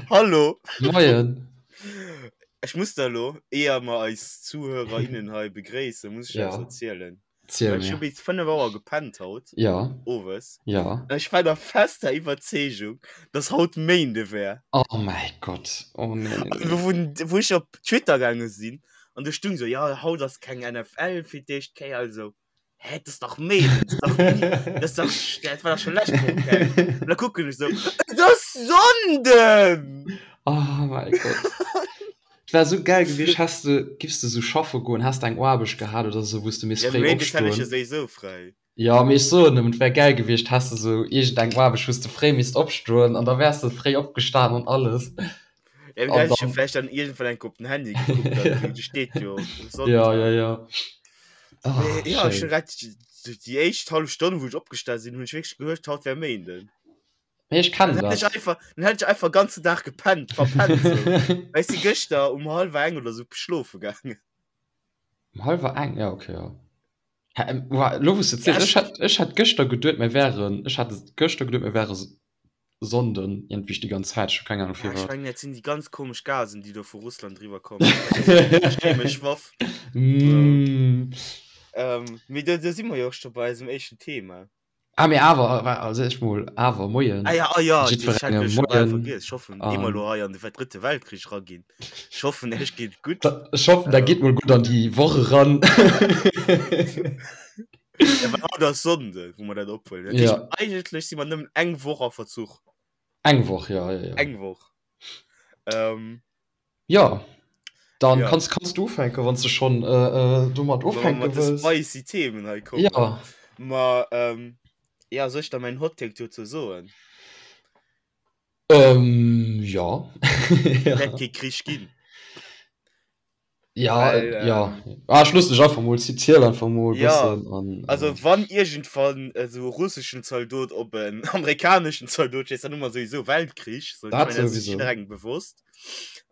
Hallo. Moien. Ech muss der elo, éier mer eis Zuhörer, innen hei begréissen, muss ech Ja. eppes erzielen. Ziel Well ech hu mir. bis 5 Auer gepennt haut, Ja. owes. Ja. An ech war der fester Iwwerzeegung, dass haut Méinde wär. Oh mäi Gott. Oh nee, nee, An nee. wou, wou ech op Twitter gaange sinn, an do stung sou, jo, haut ass keng NFL fir d'éischt Kéier, also. Hä, das ist doch Mädel, das ist doch, das ist doch, das war doch schon letzte Woche. Okay. Und dann gucken ich so, das ist Sonntag! Oh mein Gott. Et wär so geil gewiescht, häss du, giffs du so schaffe goen, häss du eng Aarbecht gehat oder so, wou s du misst Ja, fréi Méindes hätt ech ja opstoen. sowieso frei. Ja, mee ech soen nëmmen, et wär geil gewiescht, häss du sou iergendeng Aarbecht, wou s du fréi misst opstoen an da wäers du fréi opgestan an alles. Ja, An da hätt ech jo dann, vielleicht dann irgendwann eng op den Handy gekuckt, dann, do steet jo ja, ja, Sonntag. ja. Ah, Mee ja, ech schéin. hun grad déi éischt hallef Stonn, wou ech opgestan sinn, hunn ech wierklech geduecht, haut wär Méinden. Mee ech Dann kennen hätt ech dat. einfach, dann hätt ech einfach ganzen Dag gepennt, verpennt sou. Well ech si gëschter um hallwer eng oder sou schlofe gaangen. Um hallwer eng? Ja, okay, ja. Hä, ähm, wa, lo wou s de Ja, ziels, ech, ech hat, ech hat gëschter geduet, mir wären, ech hat gëschter geduet, mir wäre Sonnden, iergendwéi déi ganz Zäit, ech hu keng Ahnung ja, ech firwat. mengen, dat sinn déi ganz komesch Gasen, déi do vu Russland eriwwer kommen. Vielleicht ass dat chemesch Waff. So. Mm. Ähm, mee do, do si mer jo och scho bei eisem éischten Thema. Ah, mee awer, wa, also ech mol, awer, moien Ah ja, ah ja, ech hat jiddwerengem, jo scho bal moien vergiess. Ech hoffen, ehe mer an elo hei an de drëtte Weltkrich eraginn. Ech hoffen, iech geet et gutt. Da, ech hoffen, der Ähm. geet mol gutt an déi Woch eran. Ja, well haut ass Sonnde, wou mer dat ophuelen. Dat heescht, Ja. eigentlech si mer nëmmen eng Woch a Verzuch. Eng Woch, ja, ja, ja. Eng Woch. Ähm, Ja, dann ja. kanns, kanns du ufänken, wann s du schonn äh, äh, domat Wa mer ufänke mat de wëlls. spicy Themen hei kommen. Ja. Ma, ähm, ja, soll ech da mäin Hot Take dozou soen? Ähm, ja. Et Ja. wäert kee Krich ginn. Ja, Well, äh, ja. ähm, Ah, ech looss dech einfach mol, ziel einfach mol e ja, bëssen an also äh, wann iergendwann esou e russeschen Zaldot op en amerikaneschen Zaldot schéisst, dann hu mer souwisou Weltkrich. So, ech dat mengen, dat ass sech souwisou. jidderengem bewosst.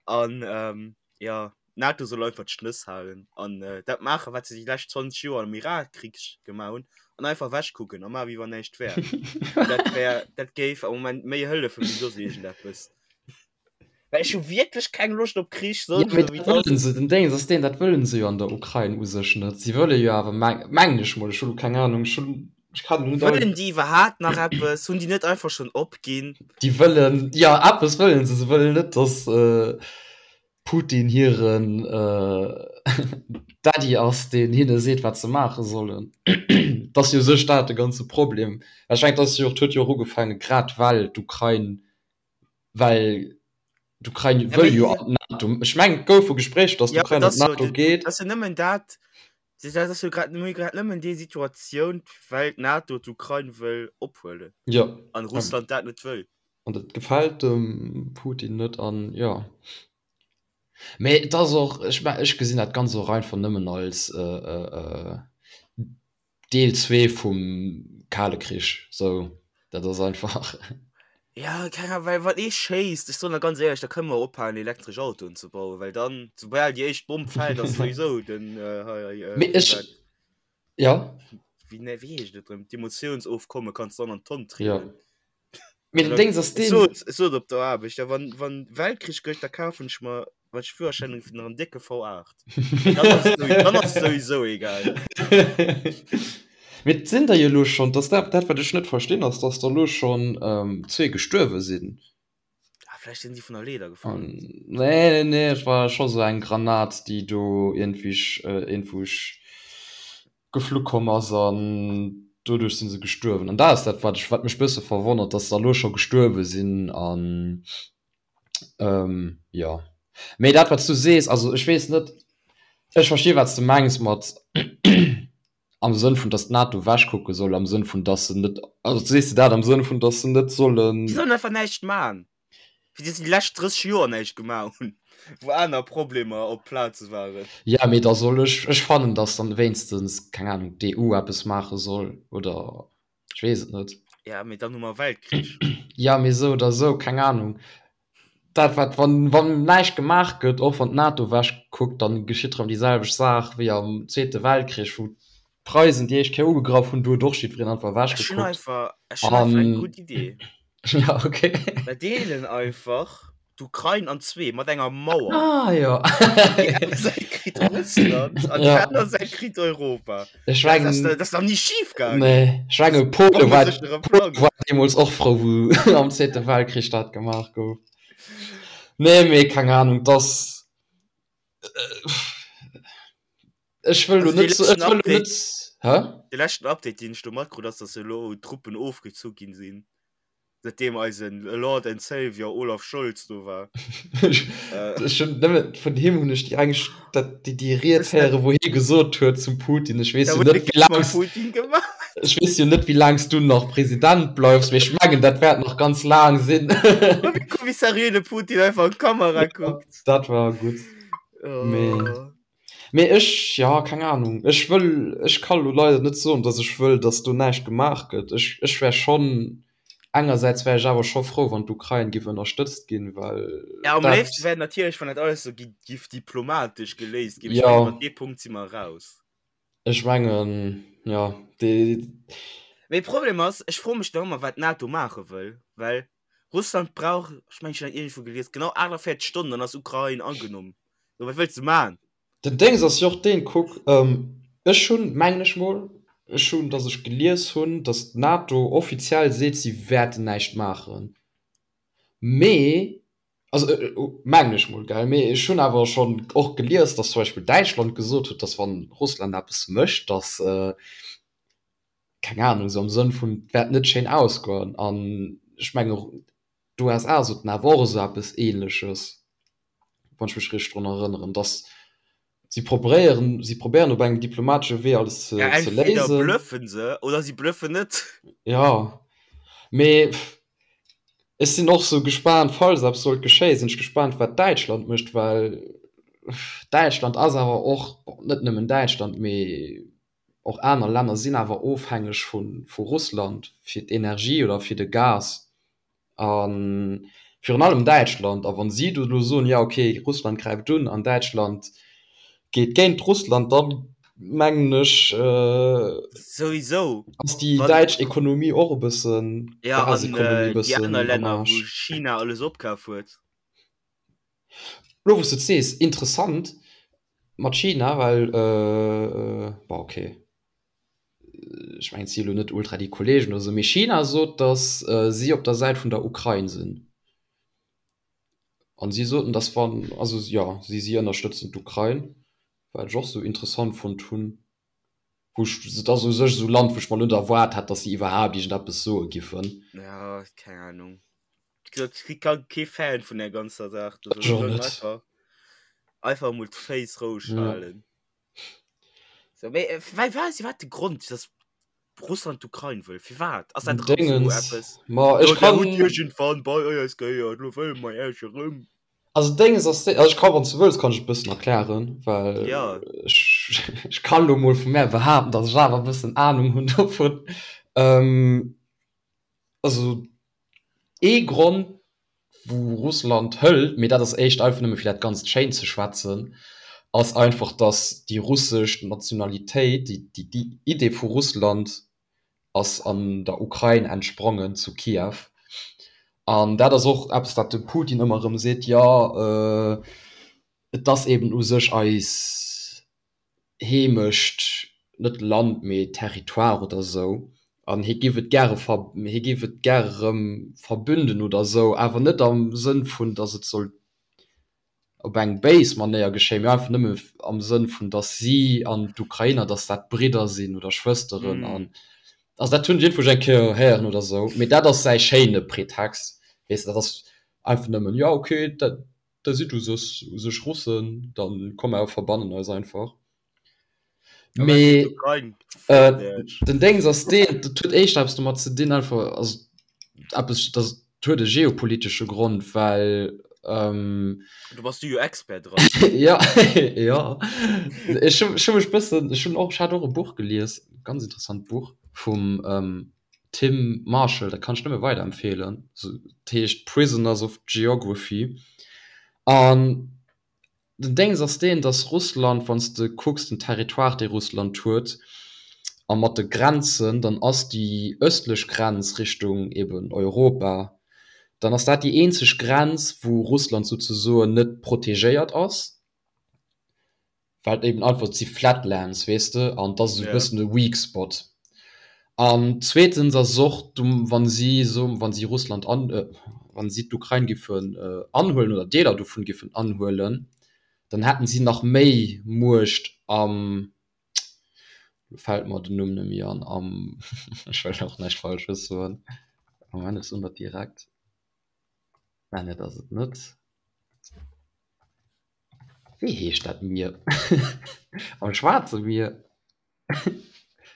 An ähm, ja, d'NATO soll einfach d'Schnëss halen an äh, dat maachen, wat se déi lescht 20 Joer am Irakkrich gemaach hunn, an einfach ewechkucken a maachen, wéi wann näischt wär. Dat wär, dat géif am Moment méi hëllefen, wéi soss iergendeppes. Well ech hu wierklech keng Loscht op Krich, Ja, sonst mee esou wéi dat et ass. wëllen se, den Déngens ass deen, dat wëllen se jo an der Ukrain u sech net. Si wëlle jo awer, meng, mengen ech mol, ech hu lo keng Ahnung, ech hunn, ech kann lo net all. Wëllen déi iwwerhaapt nach eppes? Hunn déi net einfach schonn opginn? Déi wëllen, jo, eppes wëllen se, se wëllen net, datt Putin hiren Daddy ass, deen hinne seet, wat se maache sollen. Dat ass jo u sech dat de ganze Problem. Ech mengen, dat ass jo och, et huet jo och ugefaange grad well d'Ukrain Well d'Ukrain Ja, wëll mee jo an d'NATO. Ech mengen, et goufe Gespréicher, datt ja, d'Ukrain dat an ass jo, d'NATO geet. dat ass jo nëmmen dat, dat ass jo grad, mir hu grad nëmmen déi Situatioun, well d'NATO d'Ukrain wëll ophuelen Jo. an Russland dat net wëll. An dat gefält dem Putin net an jo. Mee et ass och, ech me ech gesinn dat Ganzt och einfach nëmmen als Deel 2 vum Kale Krich, sou, dat ass einfach. Ja, keng Ahnung, well wann ee schéisst, ech soen der ganz éierlech, da kënne mer ophalen elektresch Autoen ze bauen, well dann, soubal déi éischt Bomm fält, ass souwisou den hei hei Mee wéi ech, war ja. wéi ne wéi heescht et erëm, d'Emotiounsofkomme kanns du dann an d'Tonn Ja. trieden. Mee den Déngs ass Ech deen. sot, ech sot op der Aarbecht, ja, wann, wann Weltkrich gëtt, da kafen ech mer, wann ech Führerschäin hunn, nach en décke V8. Dann ass et sowieso, dann ass et sowieso egal. Mee et sinn der jo elo schonn, dass dat, dat wat ech net verstinn, ass, dass der elo schonn zwee gestuerwe sinn. Ah, vläicht sinn si vun der Leeder gefall. An, nee, nee, nee, et war scho sou eng Granat, déi do iergendwéi, iergendwou geflu komm ass an doduerch si se gestuerwen. An dat ass dat, wat ech, wat mech bësse verwonnert, dass der elo scho gestuerwe sinn an jo. Mee dat, wat s du sees, also ech weess net, ech versti wat s de mengs mat am Sënn vun, dass d'NATO ewechkucke soll, am Sënn vun, dass se net, also sees de dat am Sënn vun, dass se net sollen. Déi sollen einfach näischt man. Wéi se déi lescht 30 Joer näischt gemaach hunn, wou aner Problemer op Plaze waren. Ja, mee da soll ech, ech fannen, datt dann wéinstens, keng Ahnung, d'EU eppes maache soll oder ech weess et net. Ja, mee dann hu mer Weltkrich. Ja, mee esou oder esou, keng Ahnung. Dat wat, wann, wann näischt gemaach gëtt, och wann d'NATO ewech kuckt, dann geschitt erëm déi selwecht Saach wéi am Zweete Weltkrich, wou d'Preisen déi éischt Kéier ugegraff hunn, do huet och jiddwereen einfach ewech Ech hunn gekuckt. einfach, ech hunn einfach eng An gutt Idee. ja, okay. Mer deelen einfach. D'Ukrain an zwee mat enger Mauer. Ah jo. Déi eng Säit kritt Russland an déi Ja. aner Säit kritt Europa. Ech Dat ass, mengen, dat ass nach ni schif gaangen. nee, ech menge Pole war, Bombeséchere Pole Plang. war deemools och frou, wou am Zweete Weltkrich dat gemaach gouf. Nee, mee keng Ahnung, dass ech wëll lo Also dee net, ech leschten wëll lo Update, net, hä? de leschten Update, deen ech do matkrut, ass, dass elo Truppen ofgezu ginn sinn. Seitdem eisen Lord and Savior Olaf Scholz do war. Ech hunn nëmme vun him hunn ech déi eng dat déi déi Ried héieren, wou hie gesot huet zum Putin, ech weess jo net wéi laang Putin gemaach. Ech weess jo net wéi laang s du nach President bleifs, mee ech mengen dat wäert nach ganz laang sinn. Wéi seriö de Putin einfach an d'Kamera kuckt. Dat war gutt. Mee. Mee ech, jo, keng Ahnung, ech wëll, ech ka lo leider net soen, datt ech wëll, datt do näischt gemaach gëtt. Ech, ech wär schonn, engersäits wär ech awer scho frou, wann d'Ukrain giff ënnerstëtzt ginn, well Ja, am dat, léifste wär natierlech, wann dat alles esou gi giff diplomatesch geléist ginn. Ech jo, mengen, iwwer dee Punkt si mer eraus. ech mengen, jo, dee. Mee Problem ass, ech froe mech nach ëmmer, wat d'NATO maache wëll, well Russland brauch, ech mengen, ech hunn dat iergendwou gelies, genau 48 Stonnen, dann ass Ukrain agenommen. So, wat wëlls de man? Den Déngs ass jo och deen, kuck, ech hunn, mengen ech mol, ech hunn, datt ech gelies hunn, datt d'NATO offiziell seet, si wäerten näischt maachen, mee, also mengen ech mol, gell, mee ech hunn awer schonn och gelies, datt zum Beispill Däitschland gesot huet, datt wann Russland eppes mécht, datt, keng Ahnung, esou am Sënn vun, et wäert net schéin ausgoen. An ech mengen, d'USA soten awer och esou eppes Ähnleches, wann ech mech richteg drun erënneren, dass si probéieren, si probéieren op engem diplomatesche Wee alles ze, Ja, ze entweder léisen. bluffen se oder si bluffen net. Ja, mee ech sinn och sou gespaant, falls eppes sollt geschéien, sinn ech gespaant, wat Däitschland mécht, well Däitschland ass awer och, bon, net nëmmen Däitschland, mee Och aner Länner sinn awer ofhängeg vu Russland fir d'Energie oder fir de Gas. A virun allem Däitschland. A wa si do elo soen, jo okay, Russland gräift un an Däitschland geet géint Russland, da mengen ech Souwisou. ass déi däitsch Ekonomie och e bëssen, Jo, an Gasekonomie e déi bëssen aner am Länner, wou Aarsch. China alles opkaf huet. Lo wou s de et sees, interessant mat China, well bon ok, ech mengen et si elo net ultra déi Kollegen oder sou, mee China sot, datt si op der Säit vun der Ukrain sinn an si soten, datt wann, also jo, si si ënnerstëtzen d'Ukrain, wat ech och sou interessant fonnt hunn, wou ech, et ass u sech esou Land, wou ech mer net erwaart hätt, datt si iwwerhaapt iergendeppes soe giffen. Ja, keng Ahnung. Ich kann kee Fan vun der ganzer Saach. Du Ech och net. Einfach, einfach mol d'Féiss roueg Ja. halen. So, mee, äh, wei, wat wat de Grond, dass Russland d'Ukrain wëll? Firwat? Ass dat erëm so Dingens. eppes? Ma ech Jo, der kann. hutt iergendwann bei eis gehéiert, lo wëlle mer Iech erëm. Also Dénges ass, also ech kann, wann s du wëlls, kann ech et e bëssen erklären, well Ja. ech, ech kann lo mol vu mär behaapten, dass ech awer e bëssen Ahnung hunn dovun. Ähm, Also ee Grond wou Russland hëlt, mee dat ass éischt einfach nëmme fir dat Ganzt schéin ze schwätzen, ass einfach datt déi russesch Nationalitéit, déi déi Idee vu Russland ass an der Ukrain entsprongen, zu Kiew. An dat ass och eppes wat de Putin ëmmer erëm seet, jo et ass eben u sech eis Heemecht, net Land, mee Territoire oder esou, an hie giff et gäre ver, hie giff et gäre erëm verbünden oder esou, awer net am Sënn vun, datt et soll op eng béis Manéier geschéien, mee einfach nëmme am Sënn vun, datt si an d'Ukrainer, datt dat Bridder sinn oder Schwësteren an, also dat hunn ech iergendwou eng Kéier héieren oder esou, mee dat ass säi schéine Pretext, weess de, dat ass einfach nëmmen, jo okay, dat. Da sidd u sech u sech Russen, dann komm mer verbannen eis einfach. Mee äh, den Déngs ass deen, dat huet éischter eppes domat ze dinn, einfach also eppes, dat huet e geopolitesche Grond, well ähm, Du bass du jo Expert dran. ja, ja. Ech hu ech hu mech bëssen, ech hunn och, ech hat och e Buch gelies, ganz interessant Buch vum ähm, Tim Marshall, dat kann ech nëmme weiderempfeelen. Dat heescht Prisoners of Geography. An den Déngs ass deen, datt Russland, wann s de kucks den Territoire dee Russland huet a mat de Grenzen, dann ass déi ëstlech Grenz Richtung eben Europa, Dann ass dat déi eenzeg Grenz, wou Russland souzesoen net protegéiert ass, well et eben einfach, et si Flatlands, weess de, an et ass esou e bëssen e weak spot. An zweetens ass et och, wa si so, wa si Russland an, wa si d'Ukrain giffen anhuelen oder Deeler dovun giffen anhuelen, dann hätten si nach méi Muecht am, lo fält mer den Numm net méi an, am, ech wëll och näischt Falsches soen, Moment, ech soen dat direkt, mä dat ass et net. Wéi heescht dat Mier? Am Schwaarze Mier?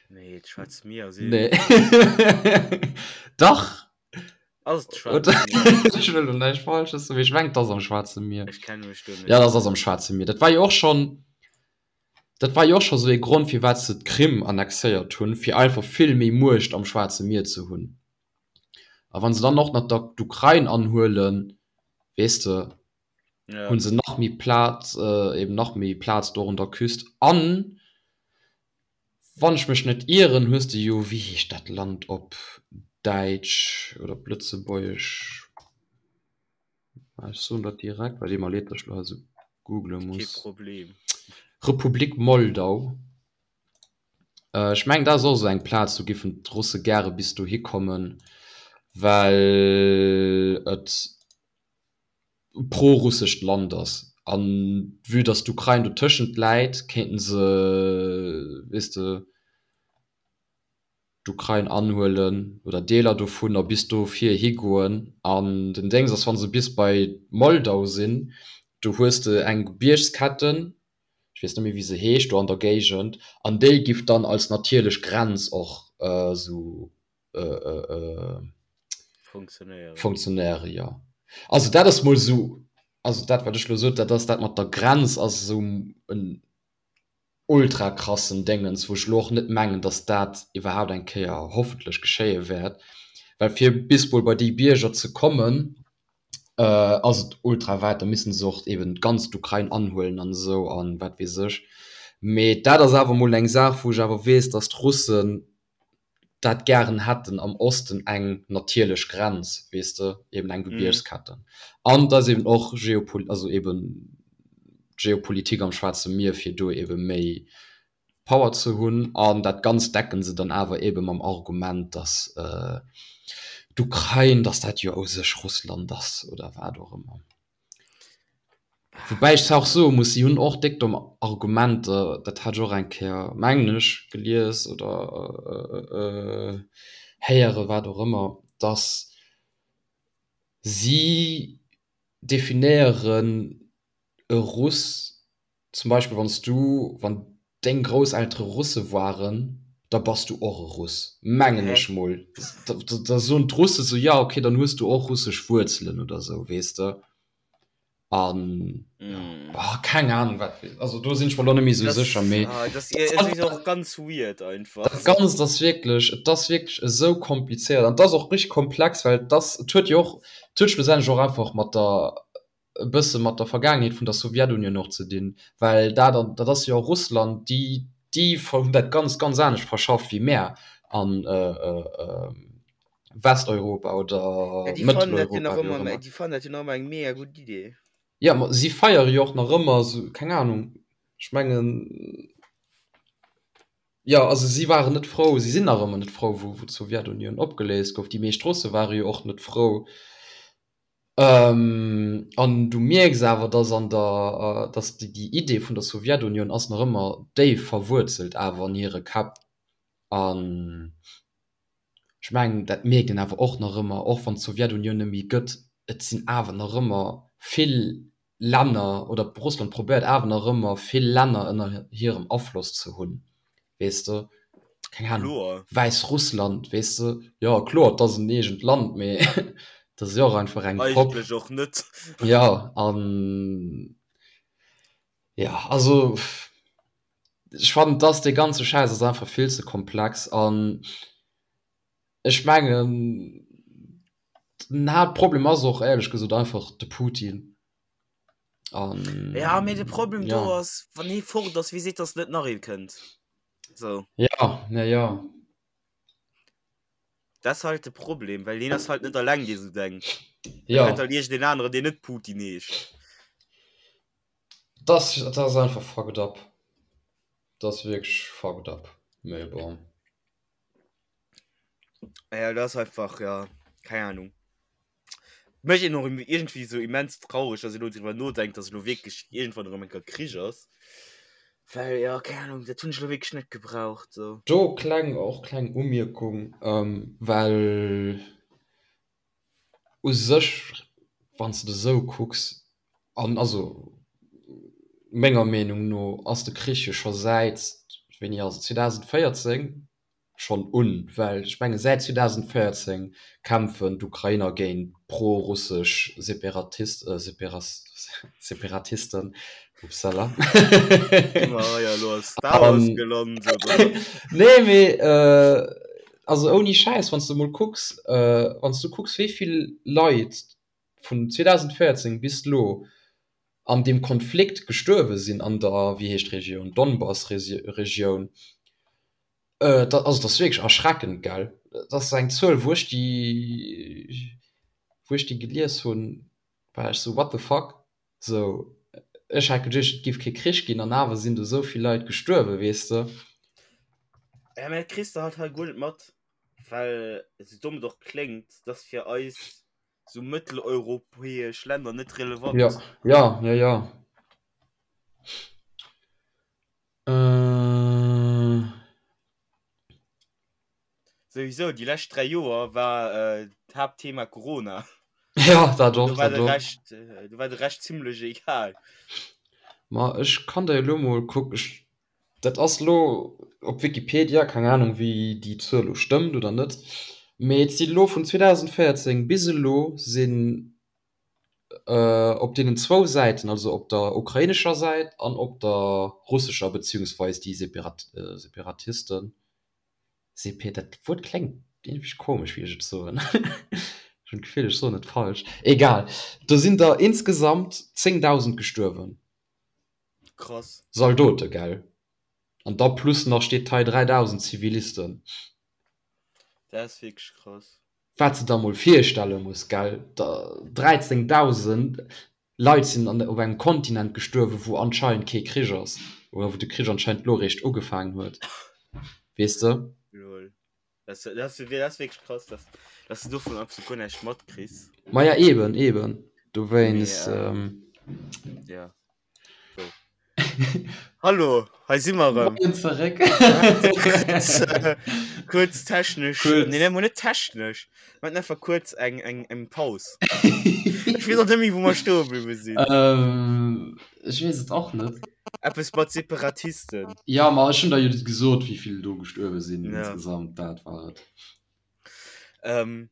Nee, d'Schwaarzt Mier ass Nee. Dach! Ass et d'Schwaarzt Mier? Ech wëll elo näischt Falsches soen, mee ech mengen, et ass am Schwaarze Mier. Ech kenne mech do net Ja, dat ass am Schwaarze Mier. Dat war jo och schonn, dat war jo och scho sou ee Grond, firwat se d'Krim annexéiert hunn, fir einfach vill méi Muecht am Schwaarze Mier ze hunn. A wa se dann och nach d'Ukrain anhuelen, weess de, Ja. hunn se nach méi Plaz, eben nach méi Plaz do un der Küst. An wann ech mech net ieren, hues de jo, wéi heescht dat Land op Däitsch oder op Lëtzebuergesch? Ech soen dat direkt, well deet mer leed, datt ech elo hei esou googele Kee muss. Problem. Republik Moldau. Ech mengen, dat ass och esou eng Plaz, do giffen d'Russe gäre bis dohi kommen, well et prorussescht Land ass an vue dass d'Ukrain dotëschent läit, kéinten se, weess de, d'Ukrain anhuelen oder Deeler dovun a bis do vir higoen. An den Déngs ass, wa se bis bei Moldau sinn, do hues de eng Gebiergsketten, ech weess net méi wéi se heescht, do an der Géigend, an déi giff dann als natierlech Grenz och esou Funktionéieren. Funktionéieren, jo. Also dat ass mol esou, also dat wat ech elo sot, dat ass dat mat der Grenz ass esou en ultra krassen Déngens, wou ech elo och net mengen, datt dat iwwerhaapt eng Kéier hoffentlech geschéie wäert, well fir bis mol bei déi Bierger ze kommen, ass et ultra wäit, da missten se och eben d'ganz d'Ukrain anhuelen an esou an wat weess ech. Mee dat ass awer mol eng Saach, wou ech awer weess, datt d'Russen dat gären hätten am Osten eng natierlech Grenz, weess de, eben eng Gebiergsketten. An et ass eben och geopol-, also eben d'Geopolitik am Schwaarze Mier, fir do ebe méi Power ze hunn. An dat Ganzt decken se dann awer ebe mam Argument, datt d'Ukrain, datt dat jo u sech Russland ass oder wat och ëmmer. Woubäi ech zwar och soe muss, si hunn och déck domm Argumenter, dat hat ech och eng Kéier, mengen ech, gelies oder héieren, wat och ëmmer, datt si definéieren e Russ Zum Beispill wann s du, wann deng Grousseltere Russe waren, da bass du och e Russ, mengen Hä? ech mol. Da, da soen d'Russe sou, ja okay, dann hues du och russesch Wuerzelen oder sou, weess de. An ja, Mm. oh, keng Ahnung wat, also do sinn ech mer lo net méi sou Das, sécher, mee ah, das, es ist och ganz weird einfach. dat Ganzt ass wierklech, et ass wierklech esou komplizéiert an et ass och richteg komplex, well et ass, et huet jo och, et huet schlussendlech och einfach mat der e bësse mat der Vergaangenheet vun der Sowjetunion och ze dinn, well dat an dat ass jo Russland, déi déi hunn dat Ganzt ganz anescht verschafft wéi mär an Westeuropa oder Ja, déi fannen dat jo Mëtteleuropa, nach wéi och ëmmer, ëmmer. déi fannen dat jo nach ëmmer eng mega gutt Idee. Jo, ma si feiere jo och nach ëmmer esou, keng Anung, ech mengen, jo, also si waren net frou, si sinn nach ëmmer net frou, wou wou d'Sowjetunion opgeléist gouf. Déi meescht Russe ware jo och net frou. An du mierks awer, dass an der, dass déi Idee vun der Sowjetunion ass nach ëmmer déif verwuerzelt awer an hire Käpp. An ech mengen, dat mierkt een awer och nach ëmmer, och wann d'Sowjetunion net méi gëtt, et sinn awer nach ëmmer vill Länner, oder Russland probéiert awer nach ëmmer vill Länner ënner hirem Afloss ze hunn, weess de, keng Ahnung, Kloer. Wäissrussland, weess de, jo kloer, et ass en eegent Land, mee et ass jo och einfach eng Popp. Eigentlech och net. Jo, an jo, also ech fannen, dass dee ganze Schäiss ass einfach vill ze komplex an ech mengen, den Haaptproblem ass och éierlech gesot einfach de Putin. An, ja, mee de Problem ja. do ass, wann hee fort ass, wie seet, dass net nach ee kënnt? So. Ja, na ja. Dat ass halt de Problem, well hien ass halt net alleng, dee sou denkt. Ja. Da kënnt halt iergendeen aneren, deen net Putin heescht. Dat ass, dat ass einfach fucked up. Dat ass wierklech fucked up. Mee bon. Ja, dat ass einfach, ja, keng Ahnung. Mécht een och iergendwéi sou immens traureg, dass een elo driwwer nodenkt, dass elo wierklech iergendwann erëm eng Kéier Krich ass. Well, jo, keng Ahnung, dat hunn ech elo wierklech net gebraucht sou. Do kleng, och kleng Umierkung, well u sech, wann s de et esou kucks, an also menger Meenung no ass de Krich jo scho säit, wéini ass et, 2014 schonn un, well ech menge säit 2014 kämpfen d'Ukrainer géint pro-russesch Separatisten, upsala. Nee mee also ouni Schäiss, wann s de mol kucks, wann s du kucks wéi vill Leit vun 2014 bis elo an deem Konflikt gestuerwe sinn an der, wéi heescht d'Regioun, Donbass-Regioun, Dat also dat ass wierklech erschreckend, gell? Dat ass eng Zuel, wou ech déi, wou ech déi gelies hunn, war ech sou, what the fuck? Sou, ech hat geduecht, et géif kee Krich ginn an awer sinn do sou vill Leit gestuerwen, weess de? Ja, mä dat kriss de halt hei guer net mat, well, esou domm et och kléngt, dat ass fir eis sou mëtteleuropäesch Länner net relevant. Ja, ja, ja, ja. Souwisou, déi lescht 3 Joer war d'Haaptthema Corona. Ja, dat och, Do war dat de och. Rescht, do war de Rescht zimlech egal. Ma ech kann der elo mol kuck, ech, dat ass elo op Wikipedia, keng Ahnung wéi déi Zuel elo stëmmt oder net, mee et si elo vun 2014 bis elo sinn op deenen zwou Säiten, also op der ukrainescher Säit an op der russescher, beziehungsweis déi Separatisten, Sepe, dat Wuert kléngt iergendwéi komesch, wéi ech et soen, ech hunn d'Gefill, ech soen et falsch, egal, do sinn der insgesamt 10.000 gestuerwen. Krass. Zaldote, gell? An da plus nach steet hei 3.000 Zivilisten. Dat ass wierklech krass. Wat s de der mol virstelle muss, gell, 13.000 Leit sinn an op engem Kontinent gestuerwen, wou anscheinend kee Krich ass, oder wou de Krich anscheinend lo eréischt ugefaangen huet, weess de? Lol. Dat ass wierklech krass, dass dass de dovun absolut guer näischt matkriss. Maja, eben, eben, dowéinst. Jo. Hallo, hei si mer erëm. Moien zeréck. Kuerz technesch, Kuerz. nee, nee, net technesch. Mir haten einfach kuerz eng, eng, eng Paus. Ech weess och net méi, wou mer stoe bliwwe sinn. Ähm, ech weess et och net. Eppes mat Separatisten. Ja, ma ech hunn der jo gesot, wéi vill do gestuerwe sinn Ja. insgesamt. Dat war et. Ähm,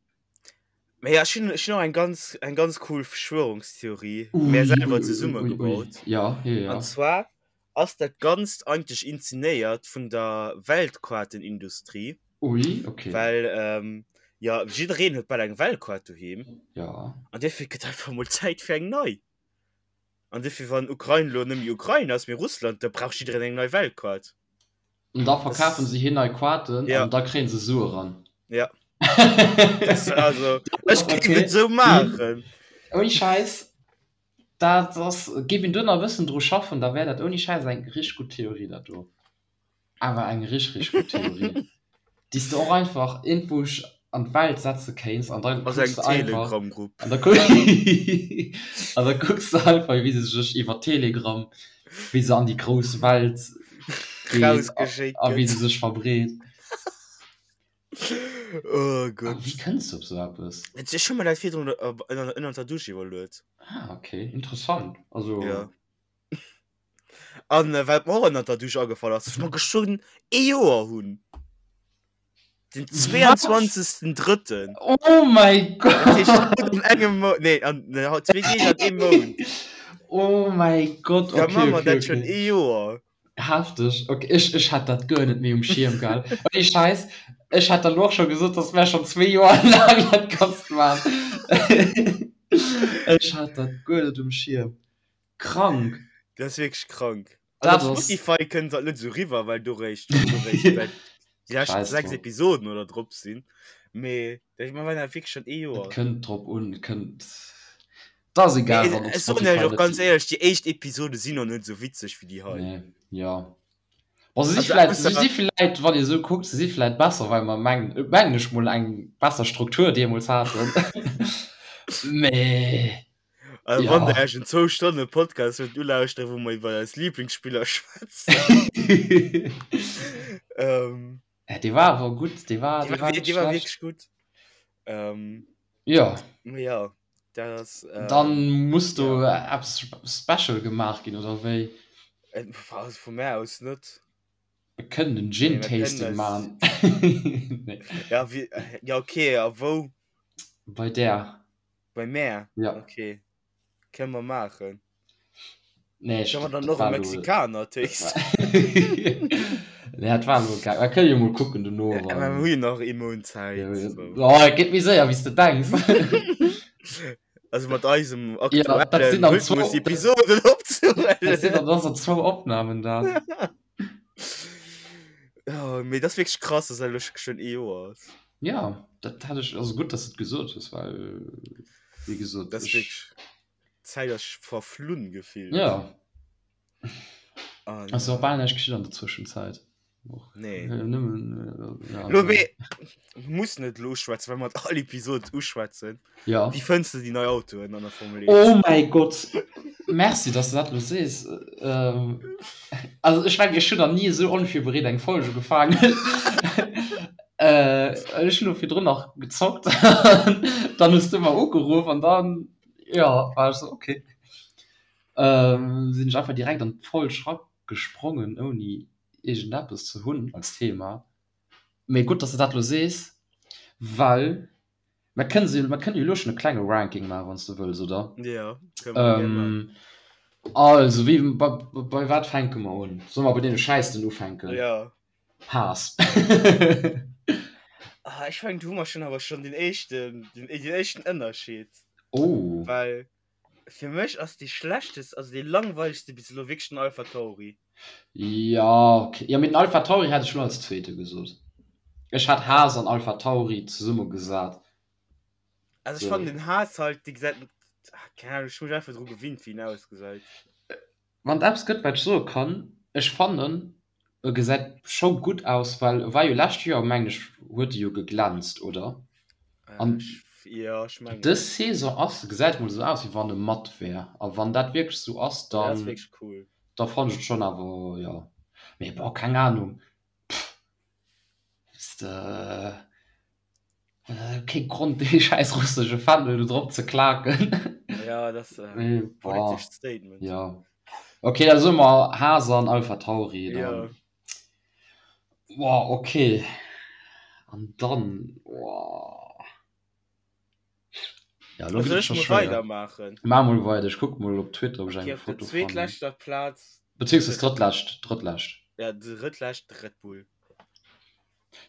Mä ja, ech hunn, ech hunn och eng ganz, eng ganz cool Verschwörungstheorie Ui, mär selwer ui, ui, ui, ui. zesummegebaut. Ja, ja, ja. An zwar ass dat Ganzt eigentlech inzenéiert vun der Weltkaartenindustrie. Ui, okay. Well, ähm, ja, jiddereen huet bal eng Weltkaart doheem. Ja. An duerfir gëtt einfach mol Zäit fir eng nei. An duerfir, wann Ukrain elo net méi Ukrain ass, mee Russland, da brauch jiddereen eng nei Weltkaart. An da verkafen se hir nei Kaarten Ja. an da kréien se Sue ran. Ja. Das, also, ech géif et esou maachen. Ouni Schäiss, dat ass, géif een do nach e bëssen dru schaffen, da wär dat ouni Schäiss eng richteg gutt Theorie, dat do. Awer eng richteg, richteg gutt Theorie, déi s de och einfach iergendwou an d'Welt setze kéints an da Also kucks eng de einfach, Telegram-Grupp. an da an da kucks de einfach, wéi se sech iwwer Telegram, wéi se an déi grouss Welt geet a Rausgeschéckt a wéi gëtt. se sech verbreet. Oh A Gott. wéi kënns de op sou eppes? Ech hu mer dat virdrun ënnert der Dusch iwwerluet. Ah, okay, interessant. Also. Ja. An äh, wat mer och ënnert der Dusch agefall ass, dass mer geschwënn ee Joer hunn. Den 22.3. Oh mäi Dat heescht, Gott! haut an engem Mount, nee, an ne, haut zwee Deeg an eem Mount. Oh mäi Gott, Da okay, maache mer okay, dat schonn okay. ee Joer. Hefteg, okay, ech, ech hat dat guer net méi um Schierm gehat. Ouni Schäiss, ech hat der lo och scho gesot, dass mär schonn zwee Joer laang dat Ganzt maachen. Ech hat dat guer net um Schierm. Krank! Dat ass wierklech krank. Also op Spotify kënnt dat net esou riwwer, well do réischt do réischt säit déi lescht Scheiß 6 drop. Episoden oder drop sinn. Mee ech mein, war wierklech schon ee Et Joer. kënnt drop un, et kënnt, et ass egal, Mee wann op ech soen iech Spotify och net ganz déi. éierlech, déi éischt Episode sinn och net esou witzeg wéi déi hei. Nee, jo. Bon, se si Also vläit, se ausser si vläit, wann ee sou kuckt, se si vläit besser, well mer mengen, mengen ech mol, eng besser Struktur deemools haten. Mee Also wann ja. der iech en zwou Stonne Podcast wëllt ulauschteren, wou mer iwwer eis Lieblingsspiller schwätzen. Ähm. Ja, dee war awer gutt, dee war, Dee dee war war net dee war schlecht. wierklech gutt. Ähm, Ja. mee ja, dat ass, ähm, Dann muss do ja. eppes special gemaach ginn, oder wéi? Äh, also vu mär aus net. Mir kënnen en Mee Gin mir kënnen Tasting eis. maachen. Nee. Ja, wie, ja okay, a wou? Bei där. Bei mär? Ja. Okay. Kënne mer maachen. Nee, ech, Kënne mer dat, dann dat och e war lo. Mexikaner Dat war tasten? Nee, dat war lo geil. Mer kënne jo mol kucken dono, Ja, mä mer wann. hu jo nach ee Mount Zäit, Ja, so. oh, et geet méi séier, wéi s de denks. Also mat eisem Ja, dat sinn aktuellen dann zwou, Rhythmus dat, Episoden dat sinn opzehuelen. dann dann zwou Opnamen dat. Oh, mee dat ass wierklech krass, dass dat elo schonn ee Joer ass. Ja, dat hat ech, also gutt, dass de et gesot hues, well wéi gesot, Dat ass ech. wierklech, d'Zäit ass verflunn gefillt. Ja. An. Ass jo och bal näischt geschitt an der Zwëschenzäit. Och Nee. nëmmen, ja, Lo also. mee mir mussen et elo uschwätzen, well mer et all Episod uschwätzen. Ja. Wéi fënns de déi nei Autoen an der Formel 1? Oh mäi Gott! Merci, dass de dat elo sees. Ähm, also ech mengen, ech hunn nach ni esou onvirbereet eng Folge ugefaangen. Äh, ech hunn elo virdrun nach gezockt, dann hues du mer ugeruff an dann, jo, war ech esou, okay. Ähm, sinn ech einfach direkt an d'Folg eragesprongen, ouni iergendeppes ze hunn als Thema. Mee gutt, dass de dat elo sees, well Mer kënnen se, mer kënnen jo elo schonn e klenge Ranking maachen, wann s de wëlls, oder? Jo, kënne mer gär maachen. Ähm, also, wéi, bei, bei wat fänke mer un? Solle mer bei deene Schäissten ufänken? Jo. Haas. Ah, ech mengen, do hu mer schonn awer schonn deen éischten, deen, deen éischten Ënnerscheed. Oh. Well fir mech ass dee schlechtest, also dee langweilegste bis elo wierklech den AlphaTauri. Ja, okay. Jo, mee den AlphaTauri hätt ech lo als zweete gesot. Ech hat Haas an AlphaTauri zesumme gesat. Also ech fannen den Haas halt, dee gesäit, ah, keng Ahnung, ech hu mech einfach dru gewinnt, wéi en ausgesäit. Wann et eppes gëtt, wat ech soe kann, ech fannen, e gesäit scho gutt aus, well e war jo lescht Joer, mengen ech, huet e jo geglänzt, oder? An Jo, ech mengen. dës Saison ass, gesäit mol esou aus, wéi wann e matt wär. A wann dat wierklech esou ass, Dat ass dann, wierklech cool. da fannen ech et schonn awer, jo. Mee bon, keng Ahnung, pff, weess de. Kee Grond dee schäiss russesche Fändel do drop ze klaken. Ja, dat ass e politescht Statement. Ja. Okay, da soe mer Haas an Alpha Tauri dann. Ja. Boah, okay. An dann, boah. Ja, lo Soll gëtt et ech scho mol schwéier. weidermaachen? Maach mol weider, ech kuck mol op Twitter, ob ech Okay, eng op der Foto fannen. zweetleschter Plaz. Beziehungsweise drëttlescht, drëttlescht. Ja, drëttlescht Red Bull.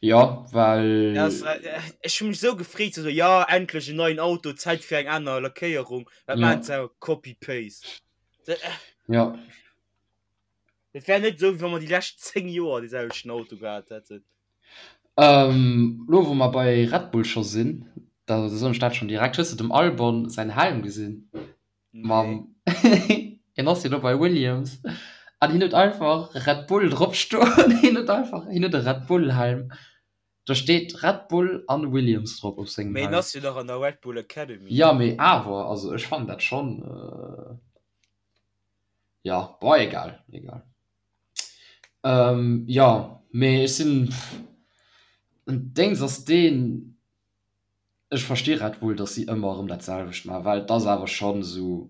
Ja, well. Ja, das, äh, ech hu mech sou gefreet, so, ja, endlech en neien Auto, Zäit fir eng aner Lackéierung. Wat Ja. maachen se? Copy-Paste. Dat, äh, Ja. dat wär net sou, wéi wa mer déi lescht 10 Joer dee selwechten Auto gehat hätten. Ähm, lo wou mer bei Red Bull scho sinn, da soen ech dat schonn direkt, Hues de dem Albon säin Helm gesinn? Mam hien ass jo lo bei Williams an hien huet einfach Red Bull drop stoen. Hien huet einfach hien huet e Red Bull Helm. Do steet Red Bull an Williams drop op sengem Mee hien Helm. ass jo nach an der Red Bull Academy. Ja mee awer, also ech fannen dat schonn ja bon egal egal. Jo mee ech sinn Déngs ass deen. Ech versti Red Bull, dass si ëmmer erëm dat selwecht maachen, well et ass awer schonn esou.